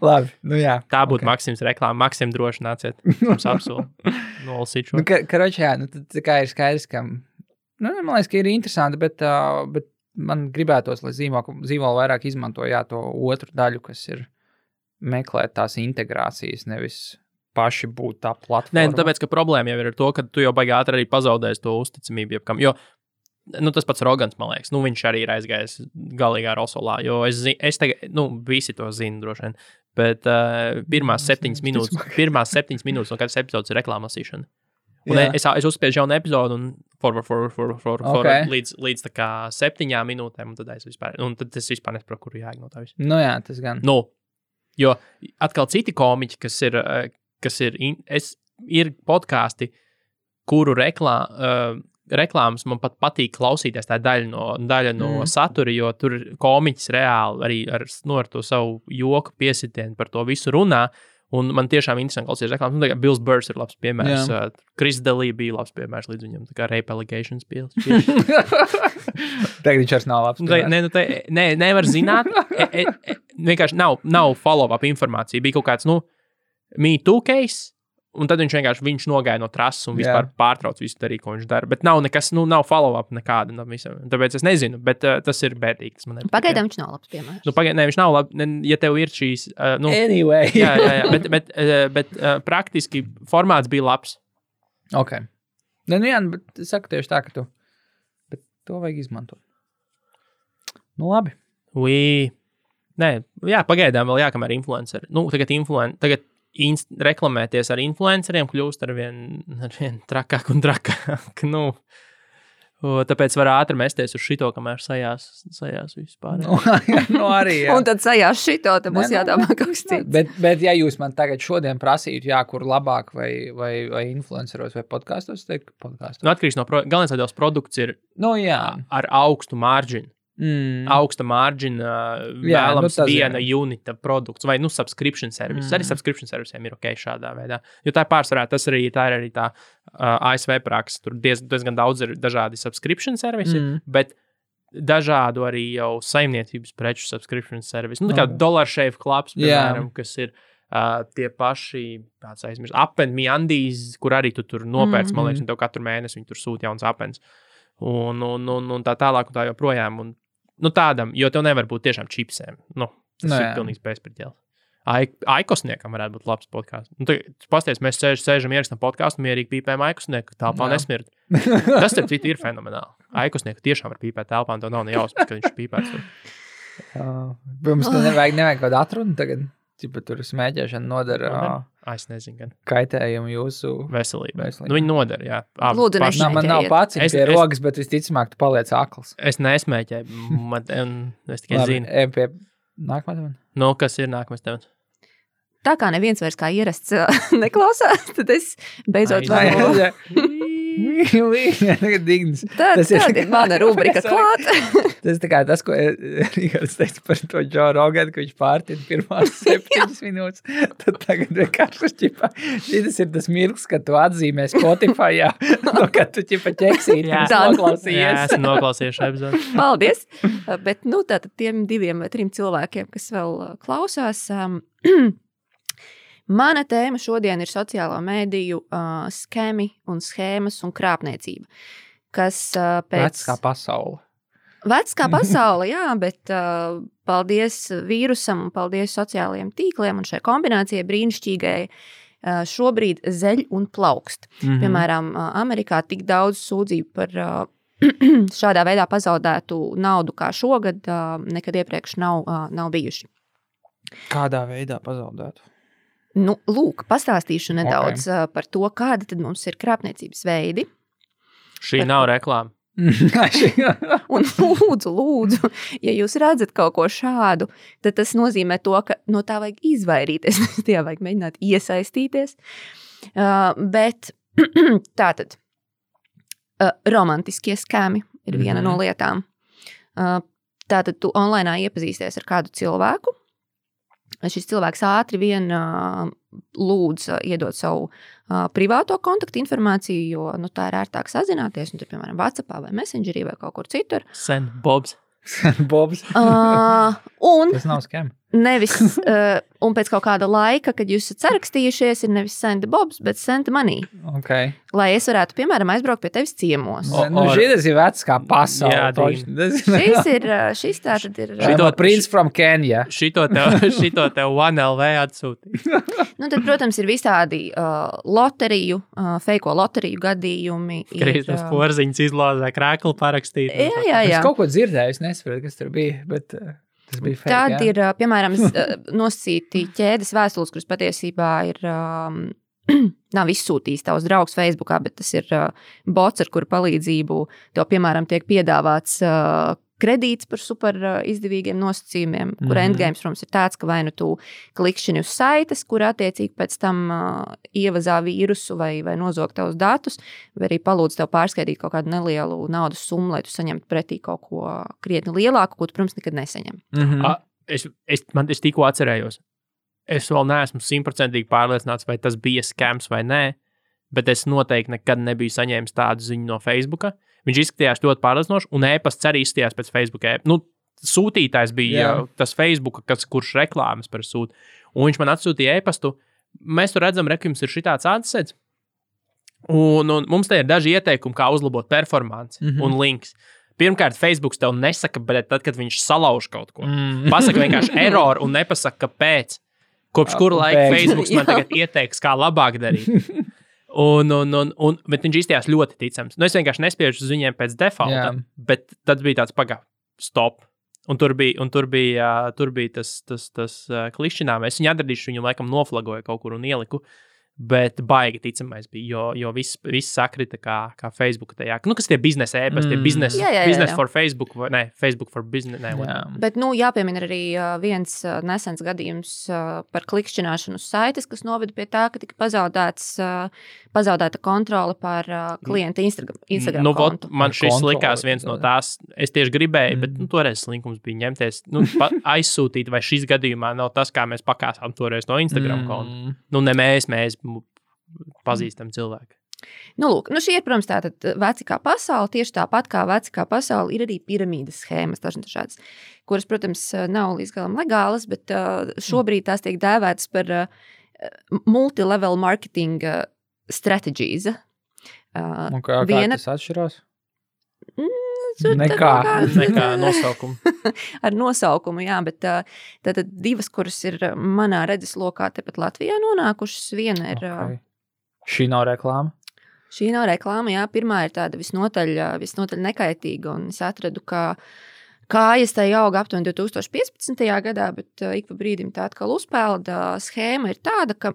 Labi, jā. Tā būtu Maksims reklāma. Maksim droši nāciet. Mums apsolu. Nolasīt šo. Karoča, tā kā ir skaidrs, ka, man liekas, ka ir interesanti, bet man gribētos, lai zīmolu vairāk izmanto, to otru daļu, kas ir meklēt tās integrācijas, nevis paši būt tā platforma. Nē, tāpēc, ka problēma jau ir ar to, ka tu jau baigi ātri arī pazaudēsi to uzticamību jebkam, jo, tas pats Rogans, man liekas, viņš arī ir aizgājis galīgā rosolā, jo es tagad, visi to zina droši vien, bet pirmās 7 minūtes no katras epizodes ir reklāmasīšana. Un es uzspiežu jaunu epizodu un līdz tā kā 7 minūtēm, un tad es vispār nesaprotu, kuru jāiek no tā visu. Jā, tas gan. Jo atkal citi komiķi, kas ir podkāsti, kuru reklāmas man pat patīk klausīties, tā daļa no satura, jo tur komiķis reāli arī ar to savu joku piesitienu par to visu runā, un man tiešām interesanti klausīties reklāmas. Bills Burrs ir labs piemērs, Chris Daly bija labs piemērs līdz viņam, tā kā Rape Allegations pils. Tagad viņš vairs nav labs. Nevar zināt. Vienkārši nav follow-up informācija. Bija kaut kāds, Me Too case, un tad viņš nogāja no trases un vispār pārtrauc visu darīt, ko viņš dara. Bet nav nekas, nav follow-up nekāda. Tāpēc es nezinu, bet tas ir bēdīgi. Pagaidām viņš nav labs piemērs. Viņš nav labs, ja tev ir šīs... Anyway. jā, bet praktiski formāts bija labs. Ok. Bet es saku tieši tā, ka bet to vajag izmantot. Labi. Pagaidām vēl jākamēr influenceri. Tagad reklamēties ar influenceriem kļūst ar vien trakāk un trakāk. Tāpēc var ātri mesties uz šito, kamēr sajās vispār. Arī, jā. Un tad sajās šito, tad būs jādomā kaut kas cits. Bet ja jūs man tagad šodien prasītu, kur labāk vai influenceros vai podkastos, teikt podkastos. Atkarīgs no galvenais, lai tavs produkts ir ar augstu marginu. Augsta margina vēlams viena unita produkts vai subscription service. Arī subscription servisiem ir ok šādā veidā. Jo tā pārsvarā tā ir arī tā ASV praksa. Tur diezgan daudz ir dažādi subscription servisi, bet dažādu arī jau saimniecības preču subscription servisi. Tā kā Dollar Shave Clubs, piemēram, kas ir tie paši, tāds aizmirst, Appenmi Andīs, kur arī tu tur nopērc, man liekas, un tev katru mēnesi viņi tur sūta jauns Appens. Un tā tālāk un tā joprojām. Un, tādam, jo tev nevar būt tiešām čipsēm. Tas ir pilnīgs bezpriķēls. Aikosniekam varētu būt labs podkāsts. Pasties, mēs sēžam ierakstām podkāstu, mierīgi pīpējam Aikosnieku, telpā nesmirt. Tas, starp citu, ir fenomenāli. Aikosnieku tiešām var pīpēt telpā, un tev nav ne jausmas, ka viņš pīpēs. Mums nevajag kaut atrunu tagad. Tur smēķēšana nodara es nezinu, gan kaitējumu jūsu veselībai. Viņi nodara, jā. Lūdzu, nešmēķējiet. Man nav pats pie rogas, bet visticamāk tu paliec akls. Es nesmēķēju, es tikai zinu. Pie nākamā temata? Kas ir nākamais temats? Tā kā neviens vairs kā ierasts neklausās, tad es beidzot varu. Tas ir mana rubrika klāt. Tas tā kā tas, ko Rihards teica par to Joe Rogan, ka viņš pārtina pirmās 7 minūtes, tad tagad vienkārši šķipā. Šis ir tas mirklis, kad tu atzīmē Spotify'ā, kad tu ķeksīti noklausījies. Jā, esmu noklausījies šo epizodu. Paldies. Bet, tātad tiem 2 vai 3 cilvēkiem, kas vēl klausās, mana tēma šodien ir sociālo mēdīju skemi un schēmas un krāpniecība, kas pēc... Vecs kā pasaule. Vecs kā pasaule, jā, bet paldies vīrusam un paldies sociālajiem tīkliem un šai kombinācijai brīnišķīgai šobrīd zeļ un plaukst. Piemēram, Amerikā tik daudz sūdzību par šādā veidā pazaudētu naudu kā šogad nekad iepriekš nav bijuši. Kādā veidā pazaudētu? Lūk, pastāstīšu nedaudz par to, kāda tad mums ir krāpniecības veidi. Šī nav reklāma. Un lūdzu, ja jūs redzat kaut ko šādu, tad tas nozīmē to, ka no tā vajag izvairīties, tajā vajag mēģināt iesaistīties. Bet tātad, romantiskie skemi ir viena no lietām. Tātad tu online iepazīsties ar kādu cilvēku, šis cilvēks ātri vien lūdz iedot savu privāto kontaktu informāciju, jo tā ir ērtāk sazināties, un tur, piemēram, WhatsAppā vai Messengerī vai kaut kur citur. Send Bobs. Bobs. Un tas nav skem. Nevis, un pēc kaut kāda laika, kad jūs esat sarakstījušies, ir nevis send Bobs, bet send money. Okay. Lai es varētu, piemēram, aizbraukt pie tevis ciemos. Šis ir vecs kā pasaule. Šis tātad ir... Prince from Kenya. Šito tev 1LV atsūtīja. Tad, protams, ir visādi loteriju, feiko loteriju gadījumi. Kristams Porziņš izlozē krēklu parakstīt. Jā. Es kaut ko dzirdēju, es nesaprotu, kas tur bija, bet... Tad ir, piemēram, nosacīti ķēdes vēstules, kuras patiesībā ir, nav izsūtījis tavs draugs Facebookā, bet tas ir bots, ar kuru palīdzību tev, piemēram, tiek piedāvāts kredīts par super izdevīgiem nosacījumiem, kur endgames, protams, ir tāds, ka vai nu tu klikšķini uz saites, kur attiecīgi pēc tam ievazā vīrusu vai nozog tavus datus, vai arī palūdz tev pārskaidīt kaut kādu nelielu naudas summu, lai tu saņemtu pretī kaut ko krietni lielāku, ko tu, protams, nekad nesaņem. Es tikko atcerējos. Es vēl neesmu 100% pārliecināts, vai tas bija skams vai nē, bet es noteikti nekad nebiju saņēmis tādu ziņu no Facebooka. Viņš izskatījās ļoti pārliecinoši, un e-pasts arī izskatījās pēc Facebook. Sūtītājs bija tas Facebook, kurš reklāmas par sūtu. Un viņš man atsūtīja e-pastu. Mēs tur redzam, ka jums ir šitāds adsets. Un mums te ir daži ieteikumi, kā uzlabot performanci un links. Pirmkārt, Facebook tev nesaka, bet tad, kad viņš salauž kaut ko. Pasaka vienkārši error un nepasaka, kāpēc. Kopš kura laika Facebook man tagad ieteiks, kā labāk darīt. Bet viņš izstījās ļoti ticams. Es vienkārši nespiežu uz viņiem pēc defaulta, bet tad bija tāds stop. Un tur bija tas klišķinām. Es viņu atradīšu, viņu laikam noflagoju kaut kur un ieliku. Bet baigi ticamais bija, jo viss sakrita kā Facebook tajā. Kas tie biznesa e-pasti, business for Facebook, vai ne, Facebook for business. Bet, jāpiemina arī viens nesens gadījums par klikšķināšanu uz saites, kas noveda pie tā, ka tika pazaudēta kontrole pār klienta Instagram kontu. Man šis likās viens no tās, es tieši gribēju, bet toreiz slinkums bija ņemties, aizsūtīt, vai šis gadījumā nav tas, kā mēs pakāsām toreiz no Instagram kontu. Ne mēs pazīstam cilvēku. Nu, lūk, šī ir, protams, tātad veci kā pasaule, tieši tāpat kā veci kā pasaule ir arī piramīdas schēmas, dažādas, kuras, protams, nav līdz galam legālas, bet šobrīd tās tiek dēvētas par multilevel marketing strategies. Un kā tas atšķirās? Nekā nosaukumu. Ar nosaukumu, jā, bet tātad divas, kuras ir manā redzes lokā tepat Latvijā nonākušas, viena ir... Okay. Šī nav reklāma? Šī nav reklāma, jā. Pirmā ir tāda visnotaļ nekaitīga, un es atradu, ka kājas tai auga aptuveni 2015. Gadā, bet ik pa brīdim tā atkal uzpelda. Schēma ir tāda, ka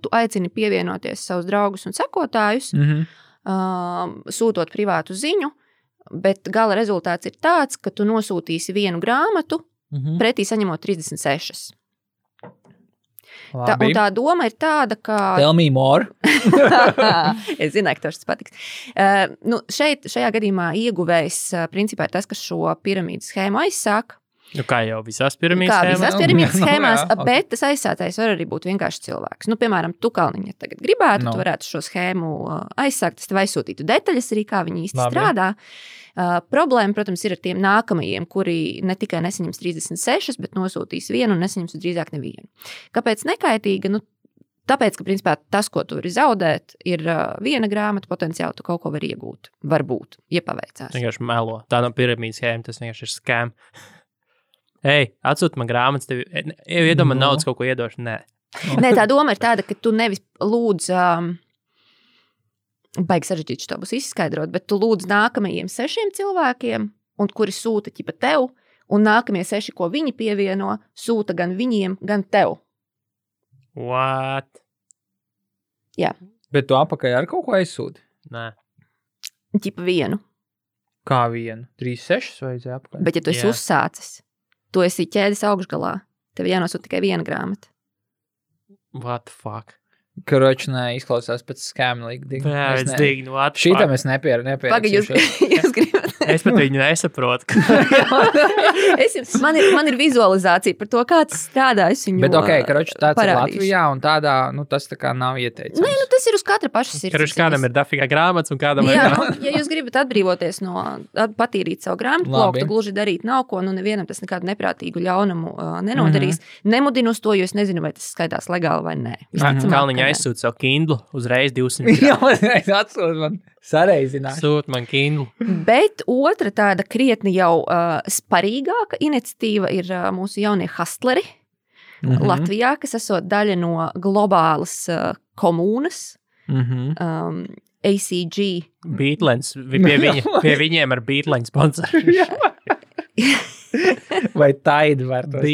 tu aicini pievienoties savus draugus un sekotājus, sūtot privātu ziņu, bet gala rezultāts ir tāds, ka tu nosūtīsi vienu grāmatu, pretī saņemot 36. Un tā doma ir tāda, ka... Tell me more. Es zināju, ka tas patiks. Šajā gadījumā ieguvējs principā ir tas, kas šo piramīdas schēmu aizsāk. Kā jau visās piramīdas schēmās, bet tas aizsācējs var arī būt vienkārši cilvēks. Piemēram, tu, Kalniņa, tagad gribētu, tu varētu šo schēmu aizsākt, es tev aizsūtītu detaļas arī, kā viņi īsti strādā. Problēma, protams, ir ar tiem nākamajiem, kuri ne tikai nesaņems 36, bet nosūtīs vienu un nesaņems drīzāk nevienu. Kāpēc nekaitīga? Tāpēc, ka, principā, tas, ko tu vari zaudēt, ir viena grāmata, potenciāli tu kaut ko vari iegūt. Varbūt, ja paveicās. Vienkārši melo. Tā nav piramīdas schēma, tas vienkārši ir scam. Ej, atsūti man grāmatas, tev iedomā naudas kaut ko iedošu. Nē, tā doma ir tāda, ka tu nevis lūdz, baigi sarežģīt šo būs izskaidrot, bet tu lūdz nākamajiem 6 cilvēkiem, un kuri sūta ķipa tev, un nākamie 6, ko viņi pievieno, sūta gan viņiem, gan tev. What? Jā. Bet tu apakai ar kaut ko aizsūti? Nē. Ķipa vienu. Kā vienu? 36 vajadzēja apakai? Bet ja tu esi uzsācis, tu esi ķēdes augšgalā, tev jānosūta tikai viena grāmata. What the fuck? Karoči, izklausās pēc skēma līdīgi. Jā, es dignu, what the fuck? Šītam es nepierakstu. Paga, jūs gribat. Es pat viņu nesaprotu. Man ir vizualizācija par to, kā tas strādā. Bet karoči, tāds ir Latvijā, un tādā, tas tā kā nav ieteicams. Nē, tas ir uz katra paša sirds. Karoči, kādam ir dafīgā grāmatas, un kādam ir... Ja jūs gribat atbrīvoties no, patīrīt savu grāmatu plauku, gluži darīt nav ko, nevienam tas nekādu neprātīgu ļaunumu nenodarīs. Nemudinu uz to, jo es nezinu, vai tas skaitās legāli vai nē. Kalniņa aizsūt savu Kindle uzreiz 200 Jā, atsūt man sareizināt. Sūt man Kindle. Bet otra tāda krietni jau sparīgāka iniciatīva ir mūsu jaunie hustleri Latvijā, kas esot daļa no globālas komūnas. ACG. Beatlens. Pie viņiem ar Beatlens sponsoru. Vai Tide var tos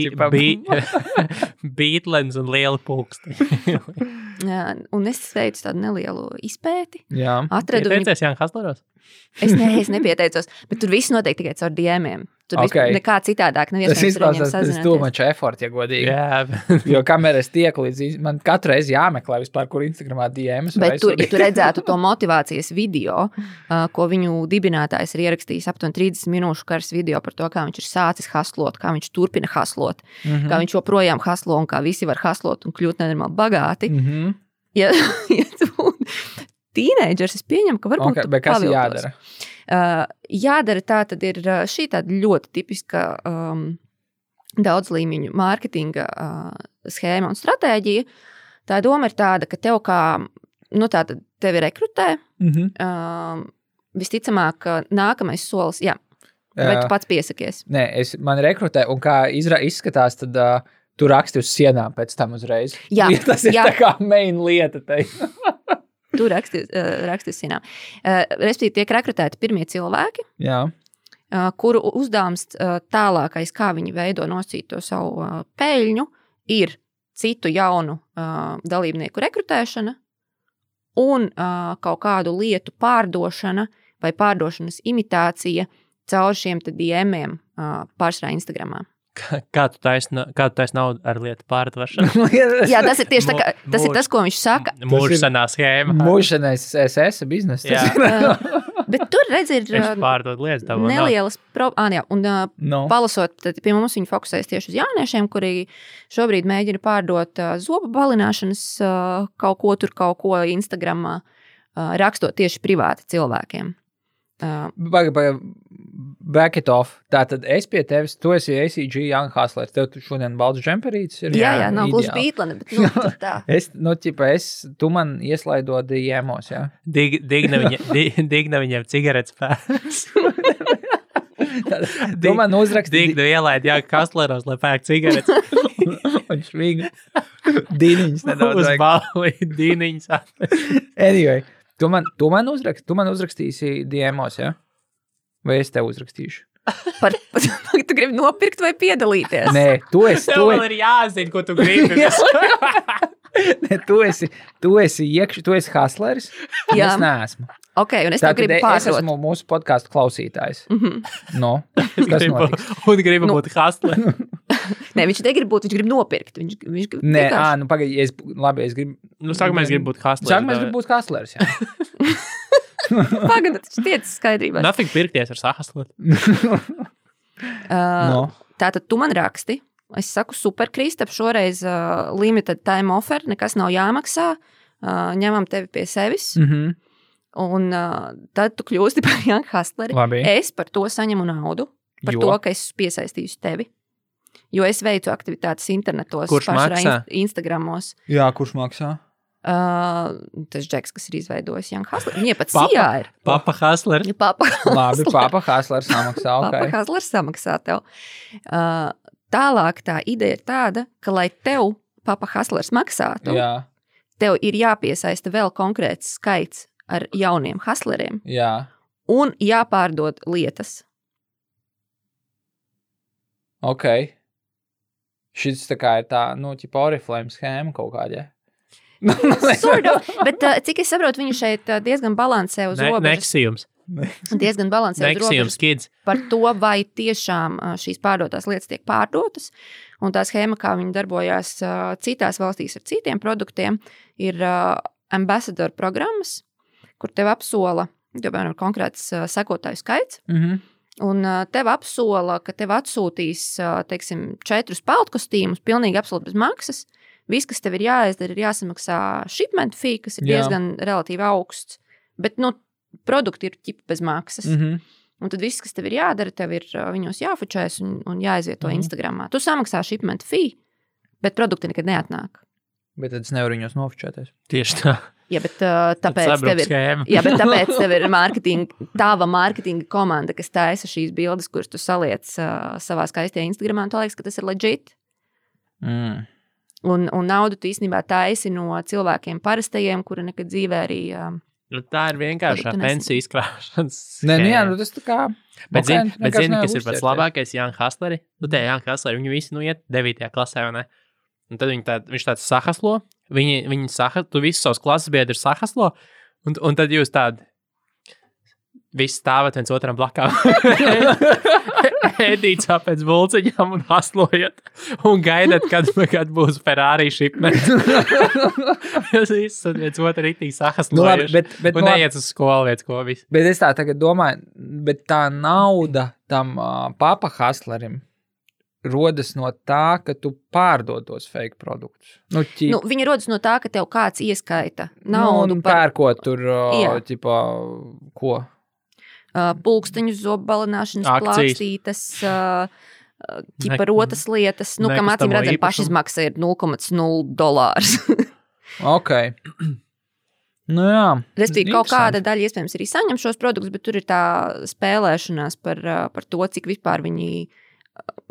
Beatlens un liela pulksti. Un es veicu tādu nelielu izpēti. Jā. Pieteicies Jānis Hasleros? Es nepieteicos, bet tur viss notiek tikai caur DM-iem. Tur nekā citādāk nav iespējams ar viņiem sazināties. Tas tūmaču effort, ja godīgi. Jā. Jo kamēr es tieku līdz, man katru reizi jāmeklē vispār, kur Instagramā DMs. Bet ja tu redzētu to motivācijas video, ko viņu dibinātājs ir ierakstījis aptuveni 30 minūšu karas video par to, kā viņš ir sācis haslot, kā viņš turpina haslot, kā viņš joprojām haslo un kā visi var haslot un kļūt nenormāli bagāti. Ja tu tīneidžers, es pieņemu, ka varbūt tu bet kas jādara? Jādara tā tad ir šī tāda ļoti tipiska daudzlīmeņu mārketinga schēma un stratēģija. Tā doma ir tāda, ka tev kā, tātad tevi rekrutē, visticamāk, nākamais solis, vai tu pats piesakies? Nē, man rekrutē, un kā izskatās, tad tu raksti uz sienām pēc tam uzreiz. Jā. Tas ir tā kā main lieta te. Tu raksti uz sienām. Respektīvi tiek rekrutēti pirmie cilvēki, kuru uzdevums tālākais, kā viņi veido nosīt to savu peļņu, ir citu jaunu dalībnieku rekrutēšana un kaut kādu lietu pārdošana vai pārdošanas imitācija caur šiem DM-iem pārsvarā Instagramā. Kā tu taisi naudu ar lietu pārdošanu? Jā, tas ir tieši tas ir tas, ko viņš saka. Mūžsanā schēma. Mūžsanais SS biznesa. Bet tur redz ir Es pārdod lietas tavo. nelielas palasot, tad pie mums viņi fokusējas tieši uz jauniešiem, kuri šobrīd mēģina pārdot zobu balināšanas kaut ko Instagramā, rakstot tieši privāti cilvēkiem. Back it off. Tātad es pie tevis, tu esi ACG Young Hustler. Tev šodien balts džemperītis ir. Jā, nav gluži bītlane, bet tā. Tu man ieslaido DM'os, jā? Digna viņiem cigaretes pēc. Tu man uzrakstīji. Digna ielaid, jā, Hustleros, lai pērk cigaretes. Un švīga. Dīniņas nedaudz Uz vajag. balvi, dīniņas. Anyway, tu man uzrakstīsi DM'os, jā? Vai es tev uzrakstīšu? Tu gribi nopirkt vai piedalīties? Nē, tu esi. Tev vēl ir jāzina, ko tu gribi. Ne, tu esi hustleris, un Jā. es neesmu. Ok, un es tev Tātad gribu es pārdot. esmu mūsu podcastu klausītājs. No, kas Gribu, notiks? un gribu būt hustler. Nē, viņš negrib būt, viņš grib nopirkt. Viņš Nē, vienkārši- pagaidi, es gribu. Nu, sākumā es gribu būt hustler. Sākumā es gribu būt hustleris, jā. Pagaidi, tas tiec skaidrībā. Nothing pirkties ar sahastlot. No. Tātad tu man raksti. Es saku, super, Kristap, šoreiz limited time offer, nekas nav jāmaksā. Ņemam tevi pie sevis. Un tad tu kļūsti par Young Hustleri. Labi. Es par to saņemu naudu. Par Jo? to, ka es piesaistīšu tevi. Jo es veicu aktivitātes internetos. Kurš pašā maksā? Instagramos. Jā, kurš maksā? Tas Džeks, kas ir izveidojis Young Hustleri. Viņa pat Sijā ir. Papa hustler. Papa Labi, papa hustlers samaksā, Papa ok. Hustlers samaksā tev. Tālāk tā ideja ir tāda, ka, lai tev Papa Hustlers maksātu, Jā, tev ir jāpiesaista vēl konkrēts skaits ar jauniem hustleriem jā, un jāpārdod lietas. ok. Šis tā kā ir tā, ķipa Oriflame schēma kaut kādā. Sort of, bet cik es saprotu, viņu šeit diezgan balansē uz robežas. Neksījums. Diezgan balansē uz robežas Neksījums, kids. par to, vai tiešām šīs pārdotās lietas tiek pārdotas. Un tā schēma, kā viņi darbojās citās valstīs ar citiem produktiem, ir ambassador programmas, kur tev apsola, piemēram, konkrēts sekotāju skaits, un tev apsola, ka tev atsūtīs, teiksim, 4 peltkostīmus, pilnīgi absolūti bez maksas. Viss, kas tev ir jāizdara, ir jāsamaksā shipment fee, kas ir Jā. diezgan relatīvi augsts, bet, produkti ir ķipa bez maksas. Un tad viss, kas tev ir jādara, tev ir viņos jāfučēs un jāizvieto Instagramā. Tu samaksā shipment fee, bet produkti nekad neatnāk. Bet tad es nevaru viņos nofučēties. Tieši tā. Ja, bet tāpēc tev ir... Schēma. Jā, bet tāpēc tev ir tava mārketinga komanda, kas taisa šīs bildes, kuras tu saliec savā skaistajā Instagramā, un tu liekas, ka tas ir legit. Un naudu tu īstenībā taisi no cilvēkiem parastajiem, kuri nekad dzīvē arī... Nu, tā ir vienkārši Produktu pensiju izkrāšanas. Nē, schēma. jā, tas tā kā... Bet zini, vienkārši nevar kas ir pats uzķerties. labākais Young Hustleri? Tie Young Hustleri, viņi visi iet 9. klasē, vai ne? Un tad viņš tāds sahaslo, tu visus savus klases biedrus sahaslo, un tad jūs tādi visi stāvat viens otram blakām. Ēdīt pēc bulciņām un haslojat un gaidat, kad būs Ferrari shipment. Jūs visi viens otru ritīgi sahaslojuši un neiet uz skolu viens ko visu. Bet es tā tagad domāju, bet tā nauda tam papa hustlerim rodas no tā, ka tu pārdod tos fake produktus. Viņi rodas no tā, ka tev kāds ieskaita naudu pērkot tur, Jā. ķipa, ko? Pulksteņus, zobalināšanas Akcijas. plākstītes, ķipa rotas lietas, kam acīm nekustamo redzam, īpašumu. pašizmaksa ir $0,0. Ok. Nu jā. Respektīvi, kaut Interesanti. kāda daļa iespējams arī saņem šos produktus, bet tur ir tā spēlēšanās par to, cik vispār viņi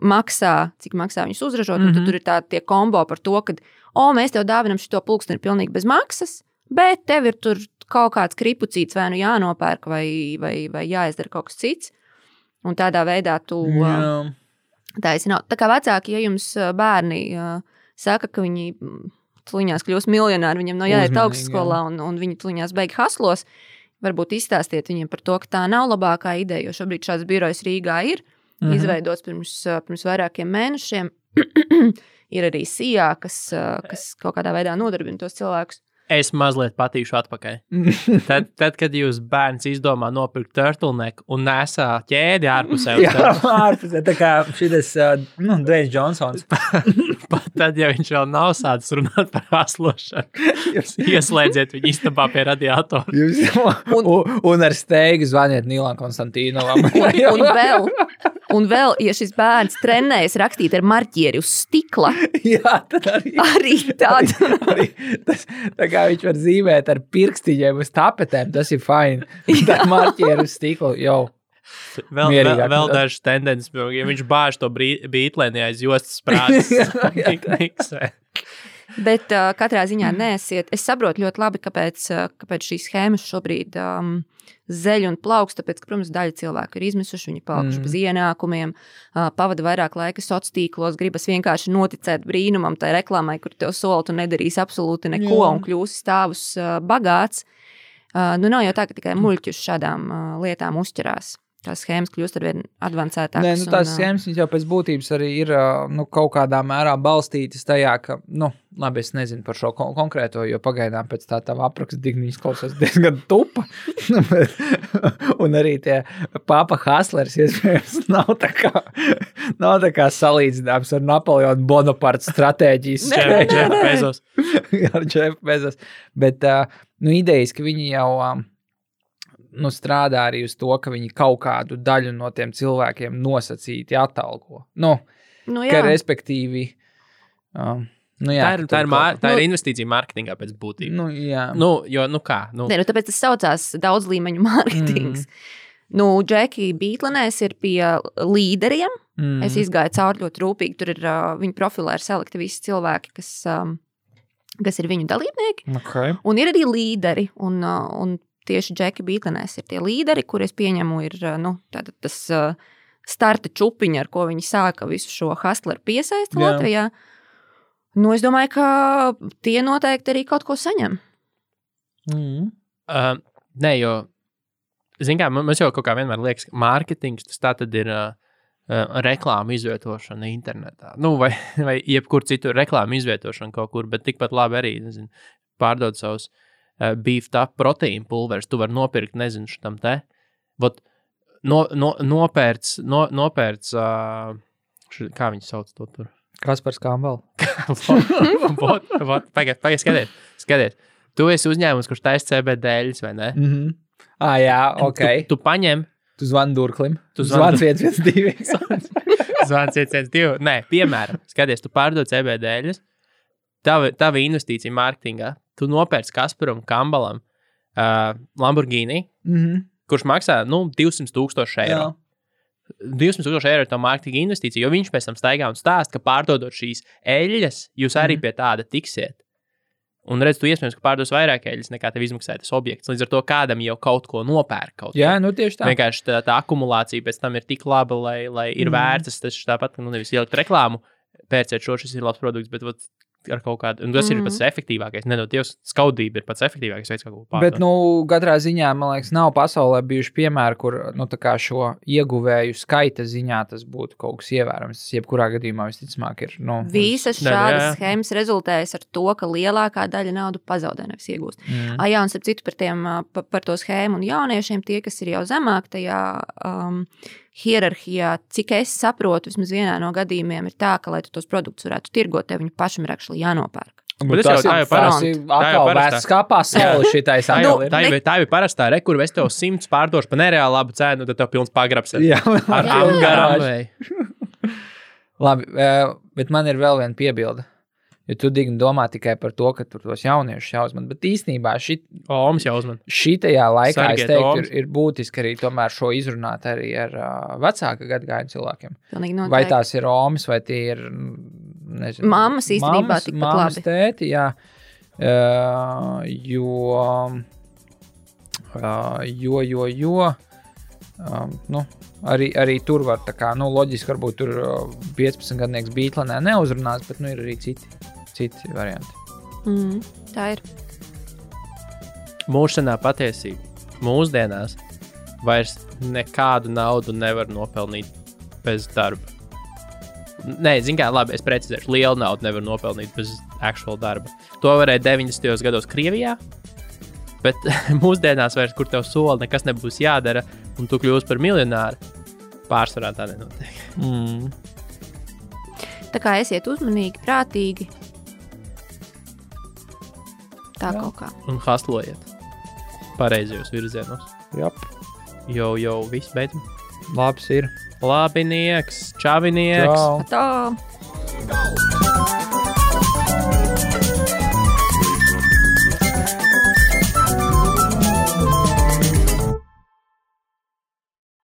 maksā, cik maksā viņus uzražot, un tad tur ir tie kombo par to, ka, mēs tev dāvinam šito pulksteni pilnīgi bez maksas, bet tev ir tur kaut kāds kripucīts vai nu jānopērk vai jāizdara kaut kas cits. Un tādā veidā tu taisi nav. Tā kā vecāki, ja jums bērni saka, ka viņi tuliņās kļūs miljonāri, viņiem nav jāiet Uzmanīgi, augstskolā un viņi tuliņās beig haslos, varbūt izstāstiet viņiem par to, ka tā nav labākā ideja, jo šobrīd šāds birojs Rīgā ir izveidots pirms vairākiem mēnešiem. Ir arī Sijā, kas kaut kādā veidā nodarbina tos cilvēkus. Es mazliet patīšu atpakaļ. Tad, kad jūs bērns izdomā nopirkt turtleneku un nesā ķēdi ārpusē. Jā, ārpusē, tā kā šitas, Dwayne Johnsons. Pat tad, ja viņš vēl nav sācis runāt par haslošanu, ieslēdziet viņu istabā pie radiatora. Un ar steigu zvaniet Nīlam Konstantīnovam. Un vēl, ja šis bērns trenējas rakstīt ar marķieri uz stikla, jā, tad arī tāda. Tā kā viņš var zīmēt ar pirkstiņiem uz tapetēm, tas ir fine. Tā marķieri uz stiklu, jau. Vēl dažas tendences, ja viņš bāž to bītlēni aiz jostas sprādes. Bet katrā ziņā neesiet. Es saprotu ļoti labi, kāpēc šīs schēmas šobrīd zeļ un plaukst, tāpēc, ka, protams, daļa cilvēku ir izmisuši, viņi palikuši bez ienākumiem, pavada vairāk laika sociālos tīklos, gribas vienkārši noticēt brīnumam, tai reklāmai, kur tev sola, tu nedarīsi absolūti neko un kļūsi stāvus bagāts. Nav jau tā, ka tikai muļķi uz šādām lietām uzķerās. Tās schēmas kļūst arvien advancētākas. Nē, tās schēmas jau pēc būtības arī ir kaut kādā mērā balstītas tajā, ka, labi, es nezinu par šo konkrēto, jo pagaidām pēc tā tava apraksta digniņas klausās diezgan tupa. Un arī tie papa Haslers, iespējams, nav tā kā salīdzināms ar Napoleonu Bonaparte stratēģijas. Jeff Bezos. Ar Jeff Bezos. Bet, idejas, ka viņi jau... strādā arī uz to, ka viņi kaut kādu daļu no tiem cilvēkiem nosacīti atalgo. Ka respektīvi... Tā ir investīcija mārketingā pēc būtības. Jā. Kā? Tāpēc tas saucās daudz līmeņu mārketings. Džeki Bītlenēs ir pie līderiem. Es izgāju cauri ļoti rūpīgi. Tur ir viņa profilē ir salikti visi cilvēki, kas ir viņu dalībnieki. Okay. Un ir arī līderi. Un tieši Džeki Bītlenēs ir tie līderi, kur es pieņemu ir tas starta čupiņa, ar ko viņi sāka visu šo hustleru piesaisti Latvijā. Es domāju, ka tie noteikti arī kaut ko saņem. Nē, jo, zin kā, mums jau kaut kā vienmēr liekas, ka mārketings tas tā tad ir reklāmu izvietošana internetā. Vai jebkur citur reklāmu izvietošana kaut kur, bet tikpat labi arī, pārdod savus beefed up proteīnu pulveris, tu vari nopirkt, nezinu, šitam te. Nopērts, kā viņi sauc to tur? Kaspars Kambal. Pagaid, skaties. Tu esi uzņēmums, kurš taisa CBD-ļus, vai ne? Jā, ok. Tu paņem. Tu zvani Durklim. Tu zvani 112. Zvani 112. Nē, piemēram, skaties, tu pārdod CBD-ļus, tava investīcija mārketingā, tu nopērci Kasparam Kambalam Lamborghini, kurš maksā 200,000 eiro. 200,000 eiro ir tā mārketinga investīcija, jo viņš pēc tam staigā un stāst, ka pārdodot šīs eļļas, jūs arī pie tāda tiksiet. Un redz, tu iespējams, ka pārdos vairāk eļļas, nekā tev izmaksāja tas objekts. Līdz ar to kādam jau kaut ko nopērk. Jā, tieši tā. Vienkārši tā akumulācija pēc tam ir tik laba, lai ir vērts. Tas tāpat, nevis ielikt reklāmu, pērciet šis ir labs produkts, bet ar kaut kādu, un tas ir pats efektīvākais. Dievs, skaudība ir pats efektīvākais veids, kā ko pārdot. Bet, katrā ziņā, man liekas, nav pasaulē bijuši piemēri, kur, tā kā šo ieguvēju skaita ziņā tas būtu kaut kas ievērams. Tas jebkurā gadījumā visticamāk ir, Visas šādas schēmas rezultējas ar to, ka lielākā daļa naudu pazaudē, nevis iegūst. Jā, un starp citu par to schēmu un jauniešiem, tie, kas ir jau zemāk tajā hierarhijā, cik es saprotu, vismaz vienā no gadījumiem ir tā, ka, lai tu tos produktus varētu tirgot, tev viņu pašam ir actually jānopērk. Tas jau parasti. Atkal vērts kā pasauli šitais. Tā jau parastā kur es tev 100 pārdošu pa nereāli labu cenu, tad tev pilns pagrabs ar garām. Labi, bet man ir vēl viena piebilde. Jo tu digni domā tikai par to, ka tur tos jauniešus jāuzman, bet īstenībā šitajā laikā, es teiktu, ir būtiski arī tomēr šo izrunāt arī ar vecāka gadagājumu cilvēkiem. Vai tās ir omas, vai tie ir, nezinu, mammas īstenībā tikpat labi. Mammas, tēti, jā, arī tur var tā kā, loģiski varbūt tur 15-gadnieks Bītlenē neuzrunās, bet ir arī citi varianti. Tā ir. Mūžsanā patiesība. Mūsdienās vairs nekādu naudu nevar nopelnīt bez darba. Nē, zin kā, labi, es precizēšu, lielu naudu nevar nopelnīt bez actual darba. To varēja 90. gados Krievijā, bet mūsdienās vairs, kur tev sola, nekas nebūs jādara, un tu kļūsi par miljonāru, pārsvarā tā nenotiek. Tā kā esiet uzmanīgi, prātīgi. Tā kaut kā. Un haslojiet pareizajos virzienos. Jop. Jau, viss beidzam. Labs ir. Labinieks, čavinieks. Čau. Tā.